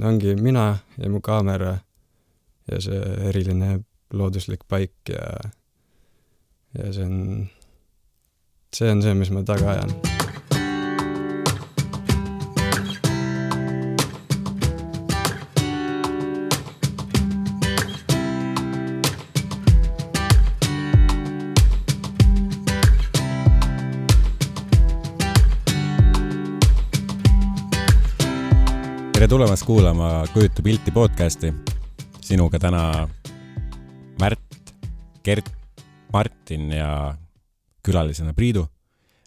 ongi mina ja mu kaamera ja see eriline looduslik paik ja see on see, mis ma taga ajan. Tere tulemast kuulama Kujuta pilti podcasti. Sinuga täna Märt, Gert, Martin ja külalisena Priidu.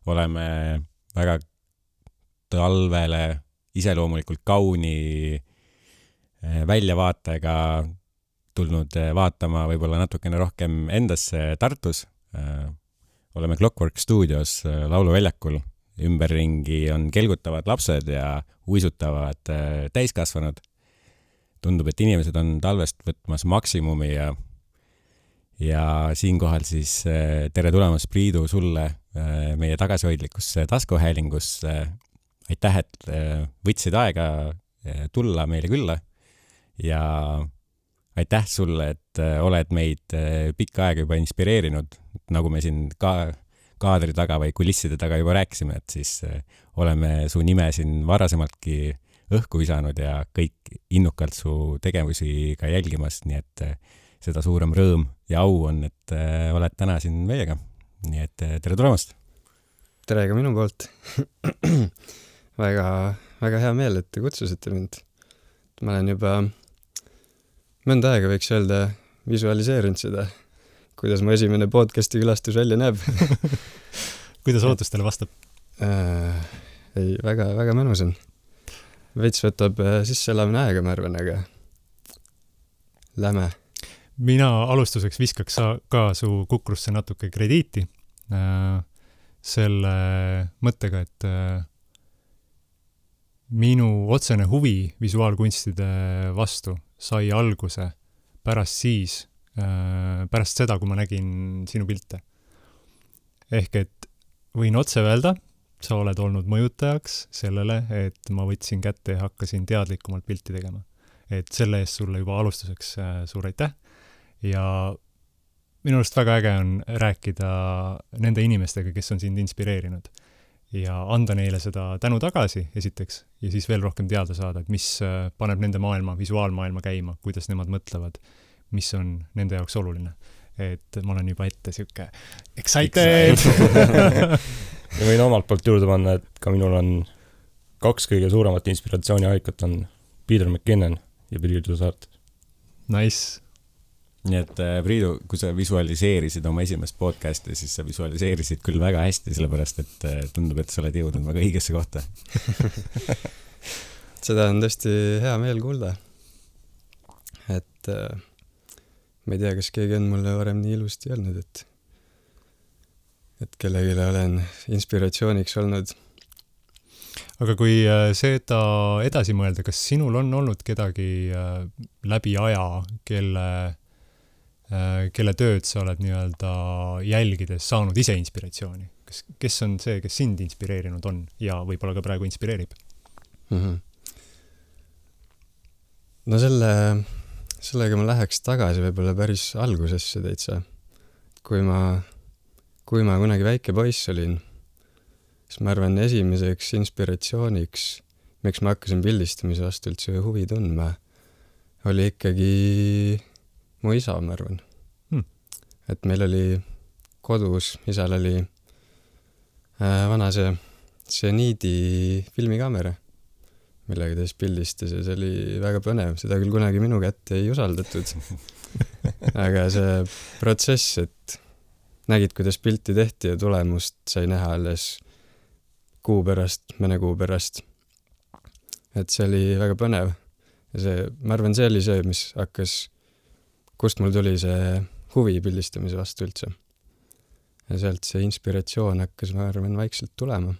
Oleme väga talvele iseloomulikult kauni väljavaatega tulnud vaatama võib-olla natukene rohkem endasse Tartus. Oleme Clockwork Studios lauluväljakul. Ümberringi on kelgutavad lapsed ja uisutavad täiskasvanud. Tundub, et inimesed on talvest võtmas maksimumi ja siinkohal siis tere tulemast Priidu sulle meie tagasihoidlikusse taskuhäälingusse. Aitäh, et võtsid aega tulla meile külla ja aitäh sulle, et oled meid pikka aega juba inspireerinud, nagu me siin kaadri taga või kulisside taga juba rääkisime, et siis oleme su nime siin varasemaltki õhku visanud ja kõik innukalt su tegevusi ka jälgimas, nii et seda suurem rõõm ja au on, et oled täna siin meiega. Nii et tere tulemast! Tere ka minu poolt! väga, väga hea meel, et te kutsusite mind. Ma olen juba mõnda aega võiks öelda visualiseerinud seda, kuidas mu esimene podcasti külastus välja näeb. Kuidas ootustele vastab? Ei, väga, väga mõnus on. Veits võtab sisseelamine aega, ma arvan, aga läme. Mina alustuseks viskaks ka su kukrusse natuke krediiti selle mõttega, et minu otsene huvi visuaalkunstide vastu sai alguse pärast seda, kui ma nägin sinu pilte. Ehk et võin otse öelda, sa oled olnud mõjutajaks sellele, et ma võtsin kätte ja hakkasin teadlikumalt pilti tegema. Et selle eest sulle juba alustuseks suur aitäh. Ja minu arust väga äge on rääkida nende inimestega, kes on sind inspireerinud. Ja anda neile seda tänu tagasi esiteks ja siis veel rohkem teada saada, et mis paneb nende maailma, visuaalmaailma käima, kuidas nemad mõtlevad, mis on nende jaoks oluline. Et ma olen juba ette siuke excited! Ja võin omalt poolt juurde panna, et ka minul on 2 kõige suuremat inspiratsiooniallikat on Peter McKinnon ja Priidu Saart. Nice! Nii et Priidu, kui sa visualiseerisid oma esimest podcasti, siis sa visualiseerisid küll väga hästi, sellepärast et tundub, et sa oled jõudnud väga õigesse kohta. Seda on tõesti hea meel kuulda. Et ma ei tea, kas keegi on mulle varem nii ilusti öelnud, et kellegile olen inspiratsiooniks olnud. Aga kui seda edasi mõelda, kas sinul on olnud kedagi läbi aja, kelle tööd sa oled nii-öelda jälgides saanud ise inspiratsiooni? Kes on see, kes sind inspireerinud on ja võib-olla ka praegu inspireerib? Mm-hmm. No sellega ma läheks tagasi võib-olla päris algusesse täitsa. Kui ma kunagi väike poiss olin, siis ma arvan esimeseks inspiratsiooniks, miks ma hakkasin pildistamise vastu üldse huvi tundma, oli ikkagi mu isa, ma arvan. Et meil oli kodus, isal oli vana see Zeniidi filmikaamera, millega ta siis pildistas ja see oli väga põnev. Seda küll kunagi minu kätte ei usaldatud. Aga see protsess, et nägid, kuidas pilti tehti ja tulemust sai näha alles mõne kuu pärast. Et see oli väga põnev. Ja ma arvan, see oli see, mis hakkas, kust mul tuli see huvi pildistamise vastu üldse. Ja sealt see inspiratsioon hakkas, ma arvan, vaikselt tulema.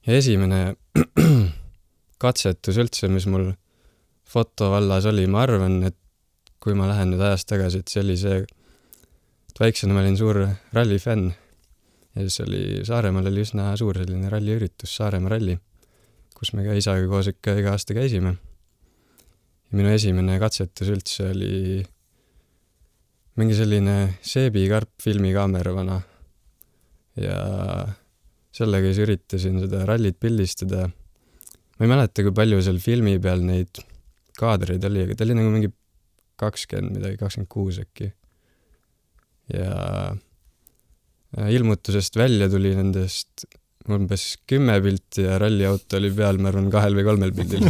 Ja esimene katsetus üldse, mis mul fotovallas oli, ma arvan, et kui ma lähen nüüd ajast tagasi, et see oli see, et väiksena ma olin suur rallifänn ja siis oli Saaremaal oli üsna suur selline ralliüritus, Saaremaa ralli, kus me ka isaga koos ikka iga aasta käisime. Ja minu esimene katsetus üldse oli mingi selline seebikarp filmikaamera vana. Ja sellega siis üritasin seda rallit pildistada. Ma ei mäleta, kui palju seal filmi peal neid kaadreid oli, aga ta oli nagu mingi 20 midagi, 26 äkki. Ja ilmutusest välja tuli nendest umbes 10 pilti ja ralliauto oli peal, ma arvan, 2 või 3 pildil.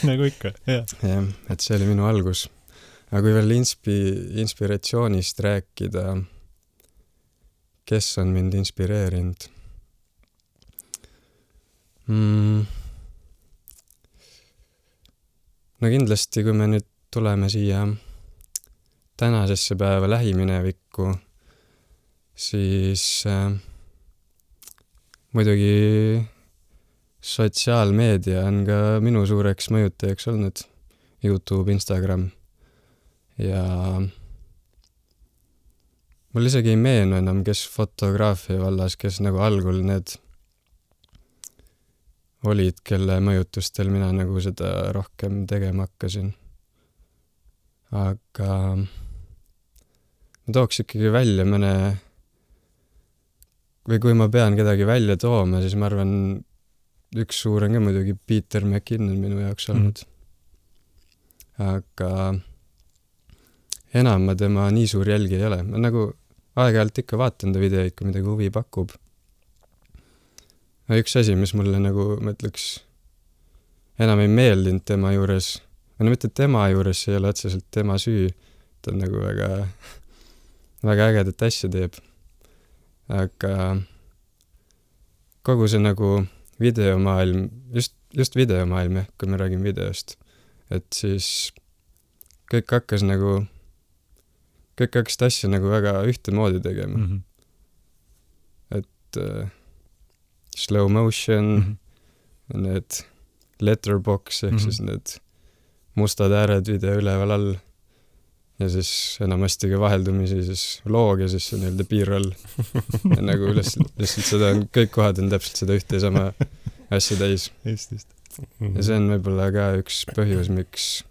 Nagu ikka, jah. Jah, et see oli minu algus. Aga kui veel inspiratsioonist rääkida, kes on mind inspireerinud? No kindlasti, kui me nüüd tuleme siia tänasesse päeva lähiminevikku, siis muidugi sotsiaalmeedia on ka minu suureks mõjutajaks olnud. YouTube, Instagram. Ja mul isegi ei meenu enam, kes fotograafia vallas, kes nagu algul need olid, kelle mõjutustel mina nagu seda rohkem tegema hakkasin. Aga ma tooks ikkagi välja mõne, või kui ma pean kedagi välja tooma, siis ma arvan, üks suur on ka muidugi Peter McKinnon minu jaoks olnud. Aga enam ma tema nii suur jälgi ei ole. Ma nagu aeg-ajalt ikka vaatan ta videoid, kui midagi huvi pakub. Üks asi, mis mulle nagu, ma ütleks, enam ei meeldinud tema juures, no mitte tema juures, see ei ole otseselt tema süü, ta on nagu väga ägedat asja teeb. Aga kogu see nagu videomaailm, just videomaailm, kui me räägime videost, et siis kõik hakkas asja nagu väga ühtemoodi tegema. Et slow motion, need letterbox, ehk siis need mustad ääred video üleval all ja siis enamasti ka vaheldumisi siis loog ja siis see nii-öelda B-roll. Ja nagu lihtsalt seda on, kõik kohad on täpselt seda ühte ja sama asja täis. Just. Ja see on võib-olla ka üks põhjus, miks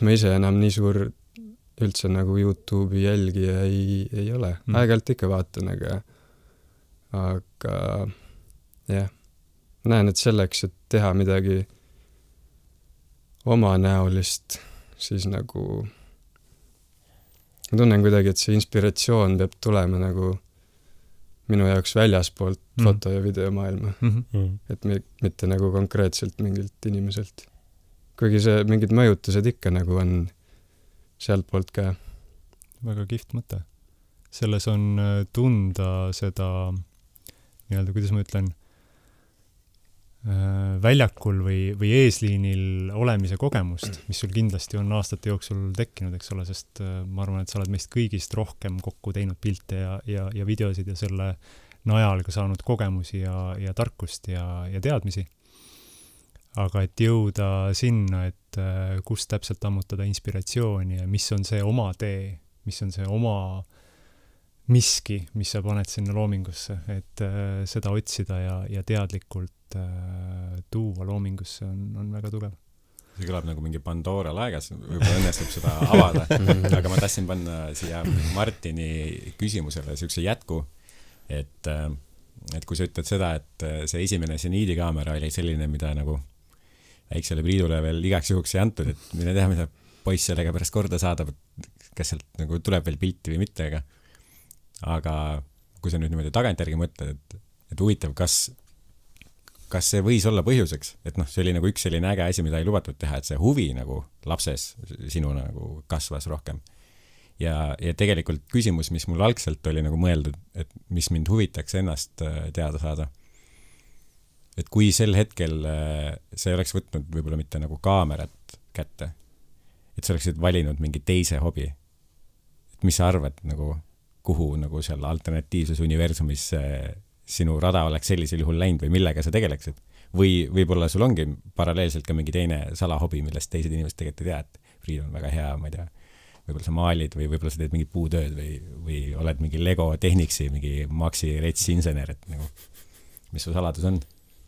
ma ise enam nii suur üldse nagu YouTube'i jälgija ei ole. Aeg-ajalt ikka vaatan, aga jah, näen, et selleks, et teha midagi omanäolist, siis nagu ma tunnen kuidagi, et see inspiratsioon peab tulema nagu minu jaoks väljaspoolt foto- ja videomaailma. Et mitte nagu konkreetselt mingilt inimeselt. Kuigi see mingid mõjutused ikka nagu on sealt poolt ka. Väga kihvt mõte. Selles on tunda seda nii-öelda, kuidas ma ütlen, väljakul või eesliinil olemise kogemust, mis sul kindlasti on aastate jooksul tekkinud, eks ole, sest ma arvan, et sa oled meist kõigist rohkem kokku teinud pilte ja videosid ja selle najal ka saanud kogemusi ja tarkust ja teadmisi. Aga et jõuda sinna, et kus täpselt ammutada inspiratsiooni ja mis on see oma tee, mis on see oma miski, mis sa paned sinna loomingusse, et seda otsida ja teadlikult tuua loomingusse on väga tugev. See kõlab nagu mingi Pandora laegas, võib-olla õnnestub seda avada, aga ma tahtsin panna siia Martini küsimusele siukse jätku, et kui sa ütled seda, et see esimene seniidikaamera oli selline, mida nagu väiksele Priidule veel igaks juhuks ei antud, et mine teha, mida poiss sellega pärast korda saadab, kas sealt nagu tuleb veel pilti või mitte, aga kui sa nüüd niimoodi tagantjärgi mõtled, et huvitav, kas see võis olla põhjuseks, et see oli nagu üks selline äge asi, mida ei lubatud teha, et see huvi nagu lapses sinu nagu kasvas rohkem. Ja tegelikult küsimus, mis mul algselt oli nagu mõeldud, et mis mind huvitaks ennast teada saada. Et kui sel hetkel sa ei oleks võtnud võib-olla mitte nagu kaamerat kätte, et sa oleksid valinud mingi teise hobi, et mis sa arvad nagu kuhu nagu seal alternatiivses universumis sinu rada oleks sellisel juhul läinud või millega sa tegeleksid. Või võib-olla sul ongi paralleelselt ka mingi teine salahobi, millest teised inimesed tegelikult ei tea, et Priit on väga hea, ma ei tea, võib-olla sa maalid või võib-olla sa teed mingit puutööd või oled mingi Lego Technicsi, mingi Maxi Rets insener, et nagu, mis su saladus on?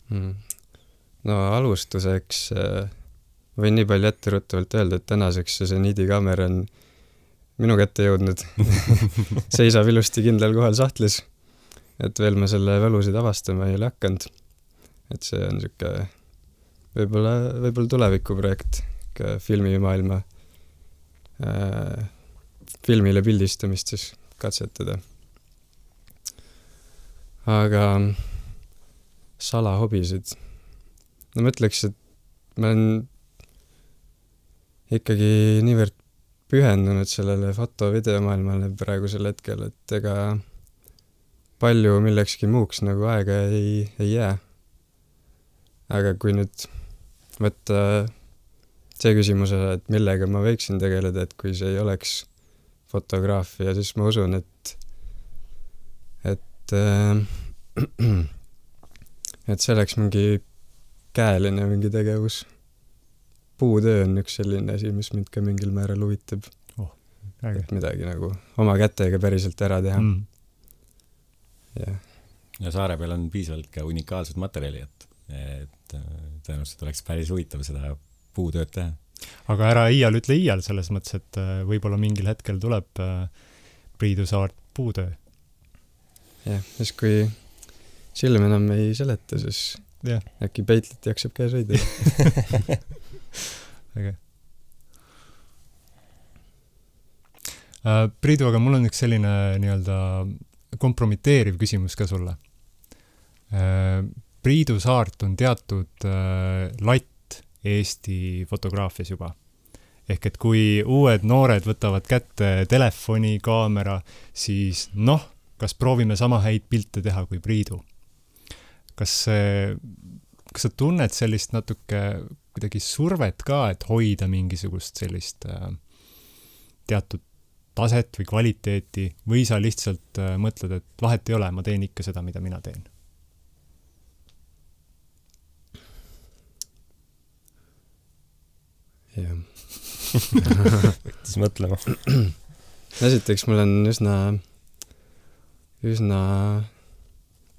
No alustuseks võin nii palju etteruttavalt öelda, et tänaseks see seniidikaamera on minu kätte jõudnud. Seisab ilusti kindlal kohal sahtlis, et veel ma selle võlusid avastama ei ole hakanud. Et see on siuke võib-olla tulevikuprojekt, filmimaailma filmile pildistamist siis katsetada. Aga salahobisid. No ma ütleks, et ma olen ikkagi niivõrd pühendunud sellele foto-videomaailmale praegusel hetkel, et ega palju millekski muuks nagu aega ei jää. Aga kui nüüd võtta see küsimuse, et millega ma võiksin tegeleda, et kui see ei oleks fotograafia, siis ma usun, et see oleks mingi käeline mingi tegevus. Puutöö on üks selline asi, mis mind ka mingil määral huvitab. Et midagi nagu oma kätega päriselt ära teha. Ja saare peal on piisavalt ka unikaalsed materjali, et tõenäoliselt oleks päris huvitav seda puutööd teha. Aga ära ütle iial selles mõttes, et võib-olla mingil hetkel tuleb Priidu Saart puutöö. Jah, siis kui silm enam ei seleta, siis äkki peitlit jaksab käes hoida. Okay. Priidu, aga mul on üks selline nii-öelda kompromiteeriv küsimus ka sulle. Priidu Saart on teatud latt Eesti fotograafias juba. Ehk et kui uued noored võtavad kätte telefoni, kaamera, siis kas proovime sama häid pilte teha kui Priidu? Kas sa tunned sellist natuke kuidagi survet ka, et hoida mingisugust sellist teatud taset või kvaliteeti, või sa lihtsalt mõtled, et vahet ei ole, ma teen ikka seda, mida mina teen? Jah. Võttis mõtlema. Esiteks mul on üsna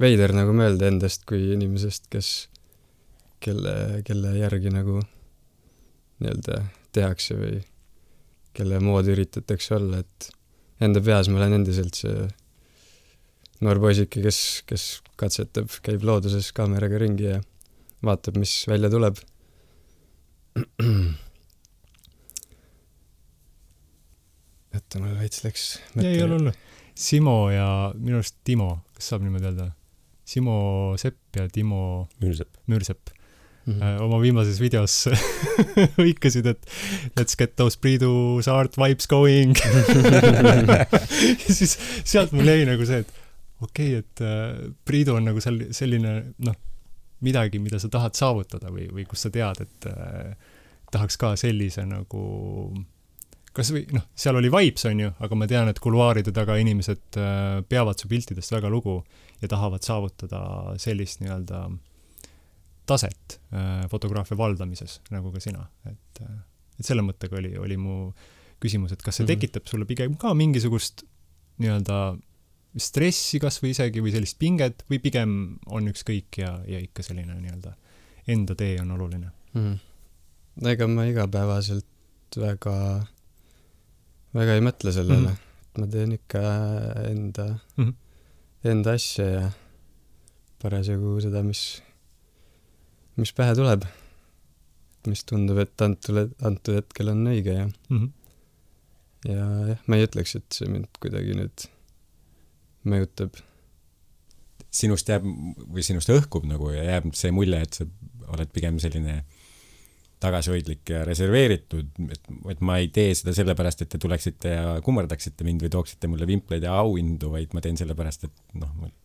veider nagu mõelda endast kui inimesest, kelle järgi nagu nii-öelda tehakse või kelle moodi üritatakse olla, et enda peas ma olen endiselt see noor poisike, kes katsetab, käib looduses kaameraga ringi ja vaatab, mis välja tuleb. Et mul veits läks mõte. Ei ole. Simo ja minu arust Timo, kas saab niimoodi öelda? Simo Sepp ja Timo Müürsepp. Oma viimases videos hõikasid, et let's get those Priidu Saart vibes going. Ja siis sealt mul jäi nagu see, et okei, et Priidu on nagu selline midagi, mida sa tahad saavutada või kus sa tead, et tahaks ka sellise nagu kas või, seal oli vibes on ju, aga ma tean, et kuluaaride taga inimesed peavad su piltidest väga lugu ja tahavad saavutada sellist nii-öelda taset fotograafia valdamises, nagu ka sina. Et selle mõttega oli mu küsimus, et kas see tekitab sulle pigem ka mingisugust nii-öelda stressi kas või isegi või sellist pinget või pigem on ükskõik ja ikka selline nii-öelda enda tee on oluline? Ega ma igapäevaselt väga ei mõtle sellele. Ma teen ikka enda asja ja parasjagu seda, mis pähe tuleb. Mis tundub, et antud hetkel on õige ja jah, ma ei ütleks, et see mind kuidagi nüüd mõjutab. Sinust jääb või sinust õhkub nagu ja jääb see mulje, et sa oled pigem selline tagasihoidlik ja reserveeritud, et ma ei tee seda sellepärast, et te tuleksite ja kummardaksite mind või tooksite mulle vimpleid ja auhindu, vaid ma teen sellepärast, et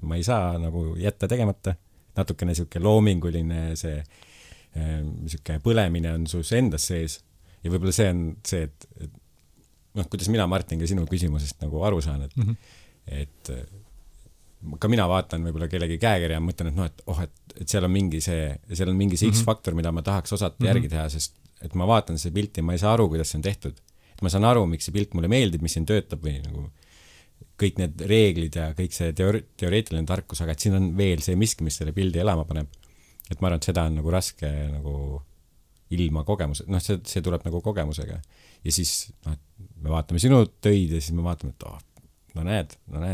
ma ei saa nagu jätta tegemata. Natukene siuke loominguline see siuke põlemine on sus endas sees ja võib-olla see on see, et kuidas mina, Martin, ka sinu küsimusest nagu aru saan, et ka mina vaatan võib-olla kellegi käekirja ja mõtlen, et seal on mingi see X-faktor, mida ma tahaks osata järgi teha, sest et ma vaatan see pilti ja ma ei saa aru, kuidas see on tehtud. Et ma saan aru, miks see pilt mulle meeldib, mis siin töötab või nagu kõik need reeglid ja kõik see teoreetiline tarkus, aga et siin on veel see miski, mis selle pildi elama paneb. et ma arvan, et seda on nagu raske nagu ilma kogemuse, noh, see tuleb nagu kogemusega. Ja siis, noh, me vaatame sinu töid ja siis me vaatame, et no näed,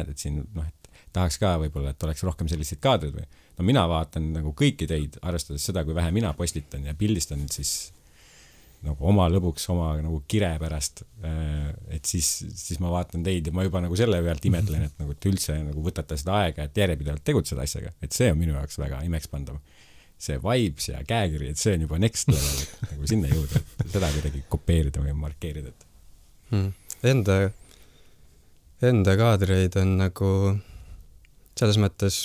et siin, noh, et tahaks ka võib-olla, et oleks rohkem selliseid kaadrid või. No mina vaatan nagu kõiki teid, arvestades seda, kui vähe mina postitan ja pildistan, siis nagu oma lõbuks, oma nagu kire pärast, et siis ma vaatan teid ja ma juba nagu selle pealt imetlen, et nagu te üldse nagu võtate seda aega, et järjepidevalt tegutseda asjaga, et see on minu jaoks väga imekspandav. See vibes ja käekiri, et see on juba next level, et nagu sinna jõuda, et seda kuidagi kopeerida või markeerida. Enda kaadreid on nagu selles mõttes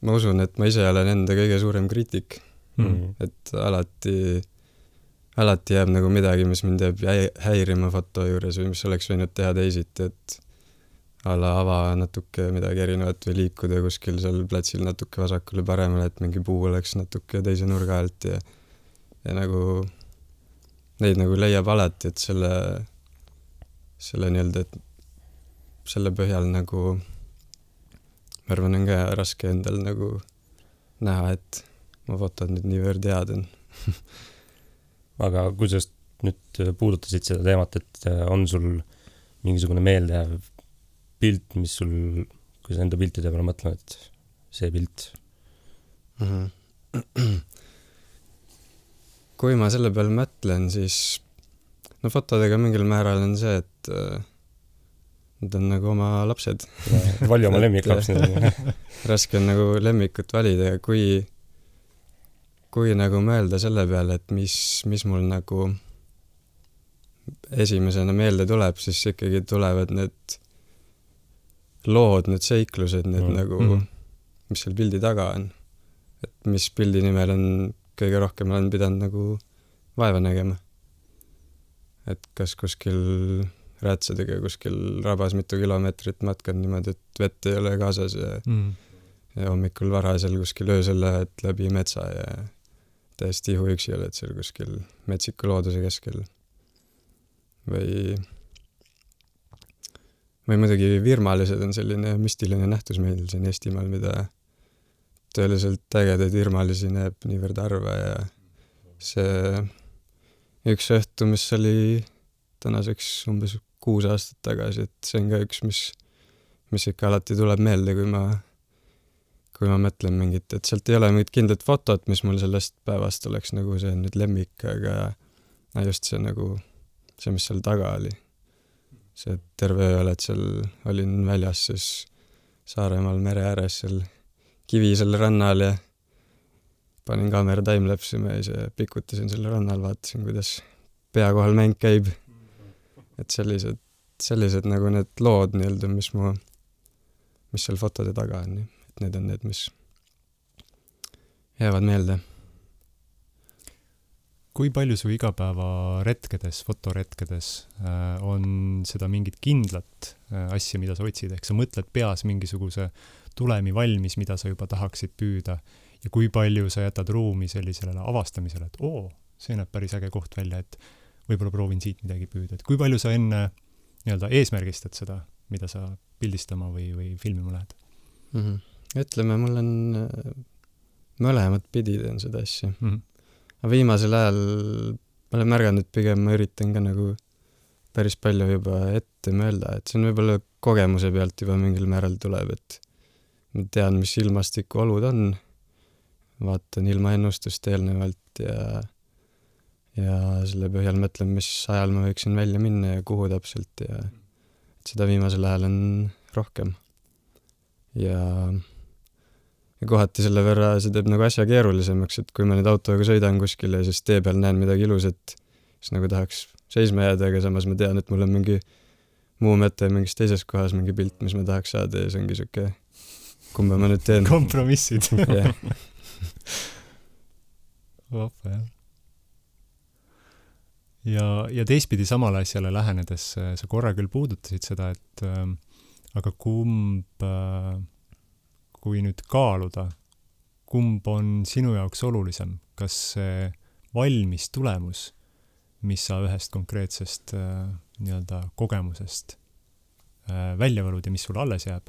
ma usun, et ma ise olen enda kõige suurem kriitik. Et alati jääb nagu midagi, mis mind jääb häirima foto juures või mis oleks võinud teha teisiti, et ava natuke midagi erinevat või liikuda kuskil seal platsil natuke vasakule paremale, et mingi puu oleks natuke teise nurga alt ja nagu neid nagu leiab alati, et selle nii-öelda, et selle põhjal nagu ma arvan, on ka raske endal nagu näha, et ma fotod nüüd niivõrd head on. Aga kui sa nüüd puudutasid seda teemat, et on sul mingisugune meeldejääv pilt, mis sul, kui sa enda piltide peale mõtled, et see pilt? Kui ma selle peale mõtlen, siis no fotodega mingil määral on see, et need on nagu oma lapsed. Vali oma lemmiklaps. Raske on nagu lemmikut valida ja kui nagu mõelda selle peale, et mis mul nagu esimesena meelde tuleb, siis ikkagi tulevad need lood, need seiklused, need nagu, mis seal pildi taga on. Et mis pildi nimel on kõige rohkem olen pidanud nagu vaeva nägema. Et kas kuskil räätsadega kuskil rabas mitu kilomeetrit matkan niimoodi, et vett ei ole kaasas ja hommikul varasel kuskil öösel lähed läbi metsa ja täiesti ihuüksi oled seal kuskil metsiku looduse keskel. Või muidugi virmalised on selline müstiline nähtus meil siin Eestimaal, mida tõeliselt ägedaid virmalisi näeb niivõrd harva ja see üks õhtu, mis oli tänaseks umbes 6 aastat tagasi, et see on ka üks, mis ikka alati tuleb meelde, kui ma mõtlen mingit, et sealt ei ole mingit kindlat fotot, mis mul sellest päevast oleks nagu see nüüd lemmik, aga just see nagu see, mis seal taga oli. See terve öö oled seal, olin väljas siis Saaremaal mere ääres seal Kivisel rannal ja panin kaamera timelapsima ja ise pikutasin selle rannal, vaatasin, kuidas pea kohal mäng käib. Et sellised nagu need lood nii-öelda, mis seal fotode taga on. Et need on need, mis jäävad meelde. Kui palju su igapäeva retkedes, fotoretkedes on seda mingit kindlat asja, mida sa otsid, ehk sa mõtled peas mingisuguse tulemi valmis, mida sa juba tahaksid püüda ja kui palju sa jätad ruumi sellisele avastamisele, et see näeb päris äge koht välja, et võib-olla proovin siit midagi püüda, et kui palju sa enne nii-öelda eesmärgistad seda, mida sa pildistama või filmima lähed? Ütleme, mul on mõlemad pidi teen seda asja. Aga viimasel ajal ma olen märganud, et pigem ma üritan ka nagu päris palju juba ette mõelda, et see on võib-olla kogemuse pealt juba mingil määral tuleb, et ma tean, mis ilmastiku olud on, vaatan ilmaennustust eelnevalt ja selle põhjal mõtlen, mis ajal ma võiksin välja minna ja kuhu täpselt ja et seda viimasel ajal on rohkem. Ja kohati selle võrra see teeb nagu asja keerulisemaks, et kui ma nüüd autoga sõidan kuskile ja siis tee peal näen midagi ilusat, siis nagu tahaks seisma jääda, aga samas ma tean, et mul on mingi muu mõte mingis teises kohas, mingi pilt, mis ma tahaks saada ja see ongi siuke, kumba ma nüüd teen. Kompromissid. Yeah. Ja teistpidi samale asjale lähenedes sa korra küll puudutasid seda, et aga kui nüüd kaaluda, kumb on sinu jaoks olulisem, kas see valmis tulemus, mis sa ühest konkreetsest nii-öelda kogemusest välja valud ja mis sul alles jääb,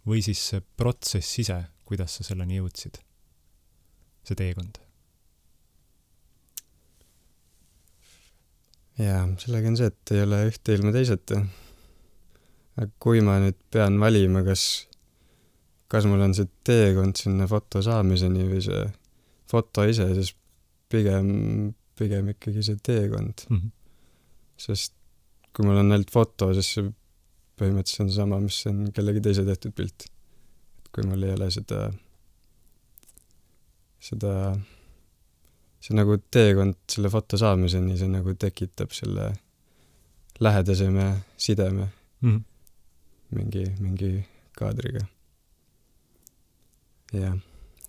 või siis see protsess ise, kuidas sa selleni jõudsid? see teekond? jaa, sellega on see, et ei ole ühte ilma teiseta. Aga kui ma nüüd pean valima, kas mul on see teekond sinna foto saamiseni või see foto ise, siis pigem ikkagi see teekond. Sest kui mul on ainult foto, siis see põhimõtteliselt on sama, mis on kellegi teise tehtud pilt. Kui mul ei ole see nagu teekond selle foto saamiseni, see nagu tekitab selle lähedaseme sideme mingi kaadriga. Jah.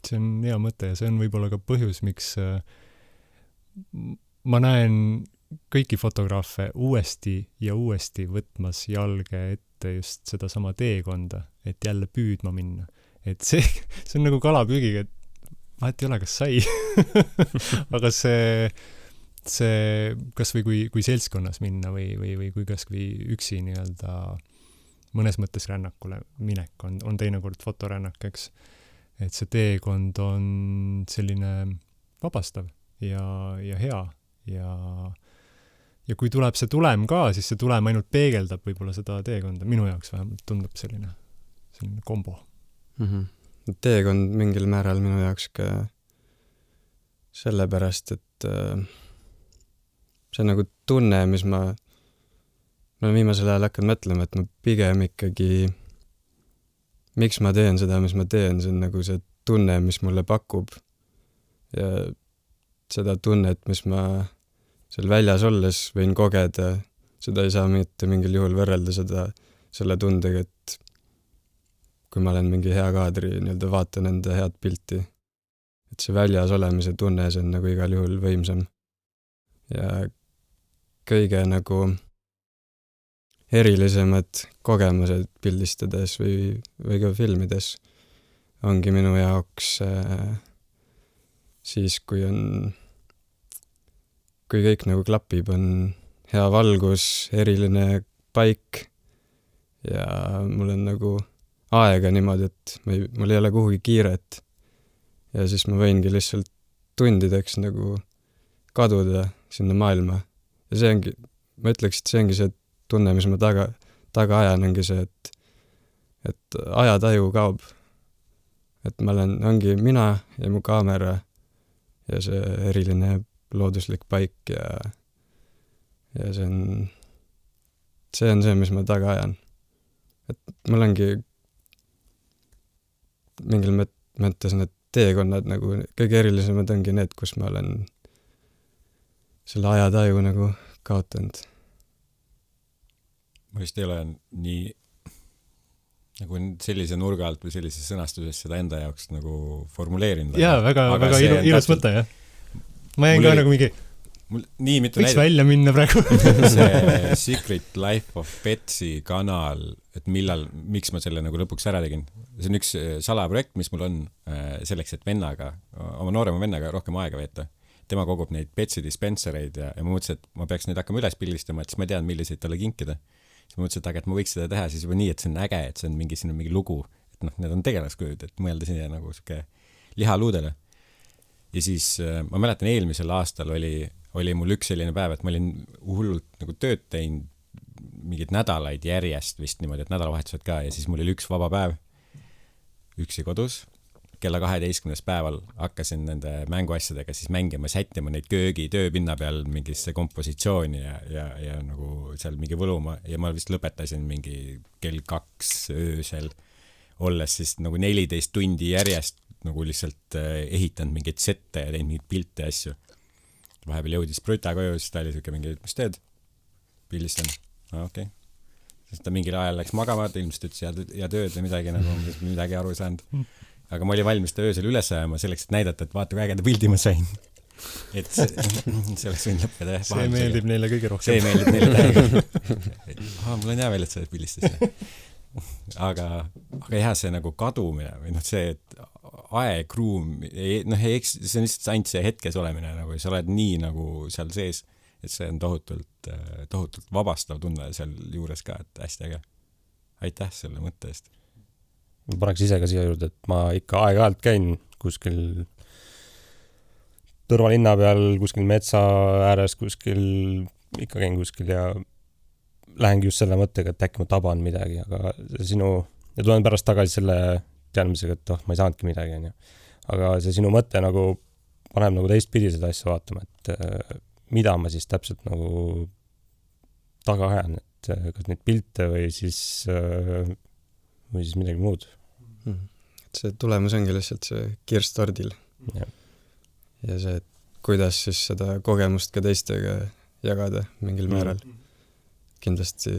See on hea mõte ja see on võib-olla ka põhjus, miks ma näen kõiki fotograafe uuesti ja uuesti võtmas jalge ette just seda sama teekonda, et jälle püüdma minna. Et see on nagu kalapüügiga, et vahet ei ole, kas sai. Aga see kas või kui seltskonnas minna või kui kas või üksi nii-öelda mõnes mõttes rännakule minek on teinekord fotorännak, eks. Et see teekond on selline vabastav ja hea ja kui tuleb see tulem ka, siis see tulem ainult peegeldab võib-olla seda teekonda. Minu jaoks vähemalt tundub selline kombo. Teekond mingil määral minu jaoks ka sellepärast, et see nagu tunne, mis ma olen viimasel ajal hakanud mõtlema, et ma pigem ikkagi miks ma teen seda, mis ma teen, see on nagu see tunne, mis mulle pakub ja seda tunnet, mis ma seal väljas olles võin kogeda, seda ei saa mitte mingil juhul võrrelda selle tundega, et kui ma olen mingi hea kaadri, nii-öelda vaatan enda head pilti, et see väljas olemise tunne, see on nagu igal juhul võimsam. Ja kõige nagu erilisemad kogemused pildistades või ka filmides ongi minu jaoks siis, kui kõik nagu klapib, on hea valgus, eriline paik ja mul on nagu aega niimoodi, et mul ei ole kuhugi kiiret ja siis ma võingi lihtsalt tundideks nagu kaduda sinna maailma. Ja see ongi, ma ütleks, et see ongi see tunne, mis ma taga ajan, ongi see, et ajataju kaob. Et ma ongi mina ja mu kaamera ja see eriline looduslik paik ja see on see, mis ma taga ajan. Et mul ongi mingil mõttes need teekonnad nagu kõige erilisemad ongi need, kus ma olen selle ajataju nagu kaotanud. Ma vist ei ole nii nagu sellise nurga alt või sellises sõnastuses seda enda jaoks nagu formuleerinud. Jaa, väga ilus mõte, jah. Ma jäin ka nagu mingi võiks välja minna praegu. See Secret Life of Petsy kanal, et miks ma selle nagu lõpuks ära tegin. See on üks salaprojekt, mis mul on selleks, et oma noorema vennaga rohkem aega veeta. Tema kogub neid Petsy dispensereid ja ma mõtlesin, et ma peaks neid hakkama üles pildistama, et siis ma tean, milliseid talle kinkida. Siis ma mõtlesin, et ma võiks seda teha siis juba nii, et see on äge, et see on mingi lugu, et need on tegelaskujud, et mõelda sinna nagu siuke lihaluudele. Ja siis ma mäletan, eelmisel aastal oli mul üks selline päev, et ma olin hullult nagu tööd teinud mingid nädalaid järjest vist niimoodi, et nädalavahetused ka ja siis mul oli üks vaba päev üksi kodus. Kella 12. päeval hakkasin nende mänguasjadega siis mängima, sättima neid köögi tööpinna peal mingisse kompositsiooni ja nagu seal mingi võluma ja ma vist lõpetasin mingi kell 2 öösel olles siis nagu 14 tundi järjest nagu lihtsalt ehitanud mingeid sette ja teinud mingeid pilte ja asju. Vahepeal jõudis Brüta koju, siis ta oli siuke mingi, mis teed? Pildistan. Okei. Siis ta mingil ajal läks magama, ta ilmselt ütles ja tööd või midagi nagu midagi aru ei saanud. Aga ma oli valmis ta öösel üles ajama selleks, et näidata, et vaata, kui ägeda pildi ma sain. Et see oleks võin lõppeda. See meeldib neile kõige rohkem. See meeldib neile täiega. Mul on hea veel, et sa pildistas. Aga jah, see nagu kadumine või see, et aeg, ruum, see on lihtsalt ainult see hetkes olemine, nagu sa oled nii nagu seal sees, et see on tohutult vabastav tunne seal juures ka, et hästi äge. Aitäh selle mõtte eest. Ma paneks ise ka siia juurde, et ma ikka aeg-ajalt käin kuskil tõrvalinna peal kuskil metsa ääres kuskil, ikka käin kuskil ja lähengi just selle mõttega, et äkki ma taban midagi, aga ja tulen pärast tagasi selle teadmisega, et ma ei saanudki midagi, onju. Aga see sinu mõte nagu paneb nagu teistpidi seda asja vaatama, et mida ma siis täpselt nagu taga ajan, et kas neid pilte või siis midagi muud. See tulemus ongi lihtsalt see kirst tordil. Ja see, et kuidas siis seda kogemust ka teistega jagada mingil määral. Kindlasti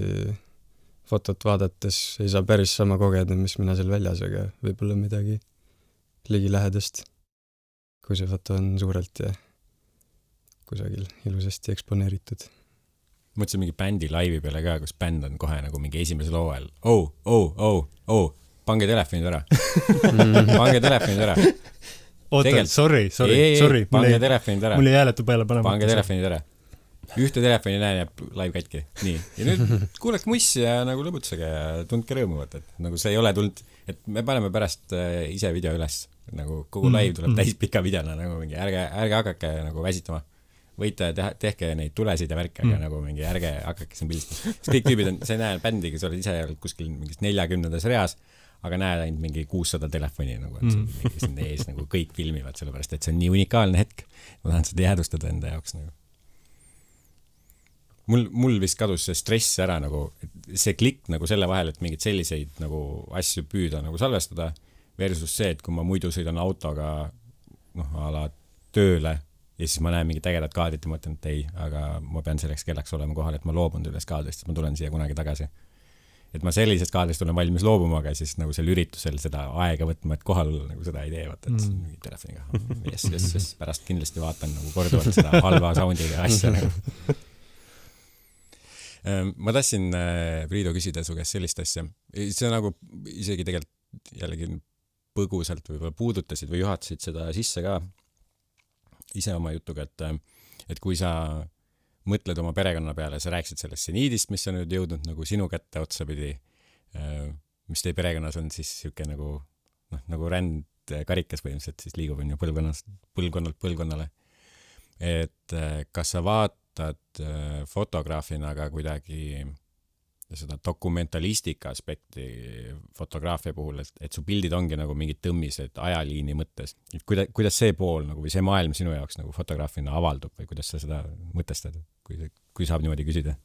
fotot vaadates ei saa päris sama kogeda, mis mina seal väljas, aga võib-olla midagi ligilähedast, kui see foto on suurelt ja kusagil ilusasti eksponeeritud. Mõtlesin mingi bändi laivi peale ka, kus bänd on kohe nagu mingi esimesel hooajal. Pange telefonid ära. Pange telefonid ära. Oota, sorry. Pange telefonid ära. Mul ei hääletu peale panema. Pange telefonid ära. Ühte telefoni näen ja live katki. Nii. Ja nüüd kuuleks mussi ja nagu lõbutsege ja tundke rõõmuvat, et nagu see ei ole tulnud, et me paneme pärast ise video üles. Nagu kogu live tuleb täis pika videona, nagu mingi ärge hakake nagu väsitama. Võite tehke neid tulesid ja värke, aga nagu mingi ärge hakake siin pildistama. Kõik tüübid on, sa ei näe bändi, kes olid ise kuskil mingis 40. reas, aga näed ainult mingi 600 telefoni, nagu, et siin ees nagu kõik filmivad, sellepärast, et see on nii unikaalne hetk. Ma tahan seda jäädustada enda jaoks. Nagu. Mul vist kadus see stress ära, nagu, see klikk nagu selle vahel, et mingid selliseid nagu asju püüda nagu salvestada, versus see, et kui ma muidu sõidan autoga ala tööle ja siis ma näen mingit ägedat kaadrit ja mõtlen, et ei, aga ma pean selleks kellaks olema kohal, et ma loobun üles kaadrist, et ma tulen siia kunagi tagasi. Et ma sellisest kaadrist olen valmis loobuma, aga siis nagu sel üritusel seda aega võtma, et kohal nagu seda ei tee, vaata, et mingi telefoniga. Yes, pärast kindlasti vaatan nagu korduvalt seda halva soundiga asja nagu. Ma tahtsin Priido küsida su käest sellist asja. See nagu isegi tegelikult jällegi põgusalt võib-olla puudutasid või juhatasid seda sisse ka ise oma jutuga, et kui sa mõtled oma perekonna peale, sa rääksid sellest seniidist, mis on nüüd jõudnud nagu sinu kätte otsapidi, mis teie perekonnas on siis siuke nagu ränd karikas põhimõtteliselt siis liigub on ju põlvkonnalt põlvkonnale. Et kas sa vaatad fotograafina ka kuidagi seda dokumentalistika aspekti fotograafia puhul, et su pildid ongi nagu mingid tõmmised ajaliini mõttes. Kuidas see pool nagu, või see maailm sinu jaoks nagu fotograafina avaldub või kuidas sa seda mõtestad, kui saab niimoodi küsida?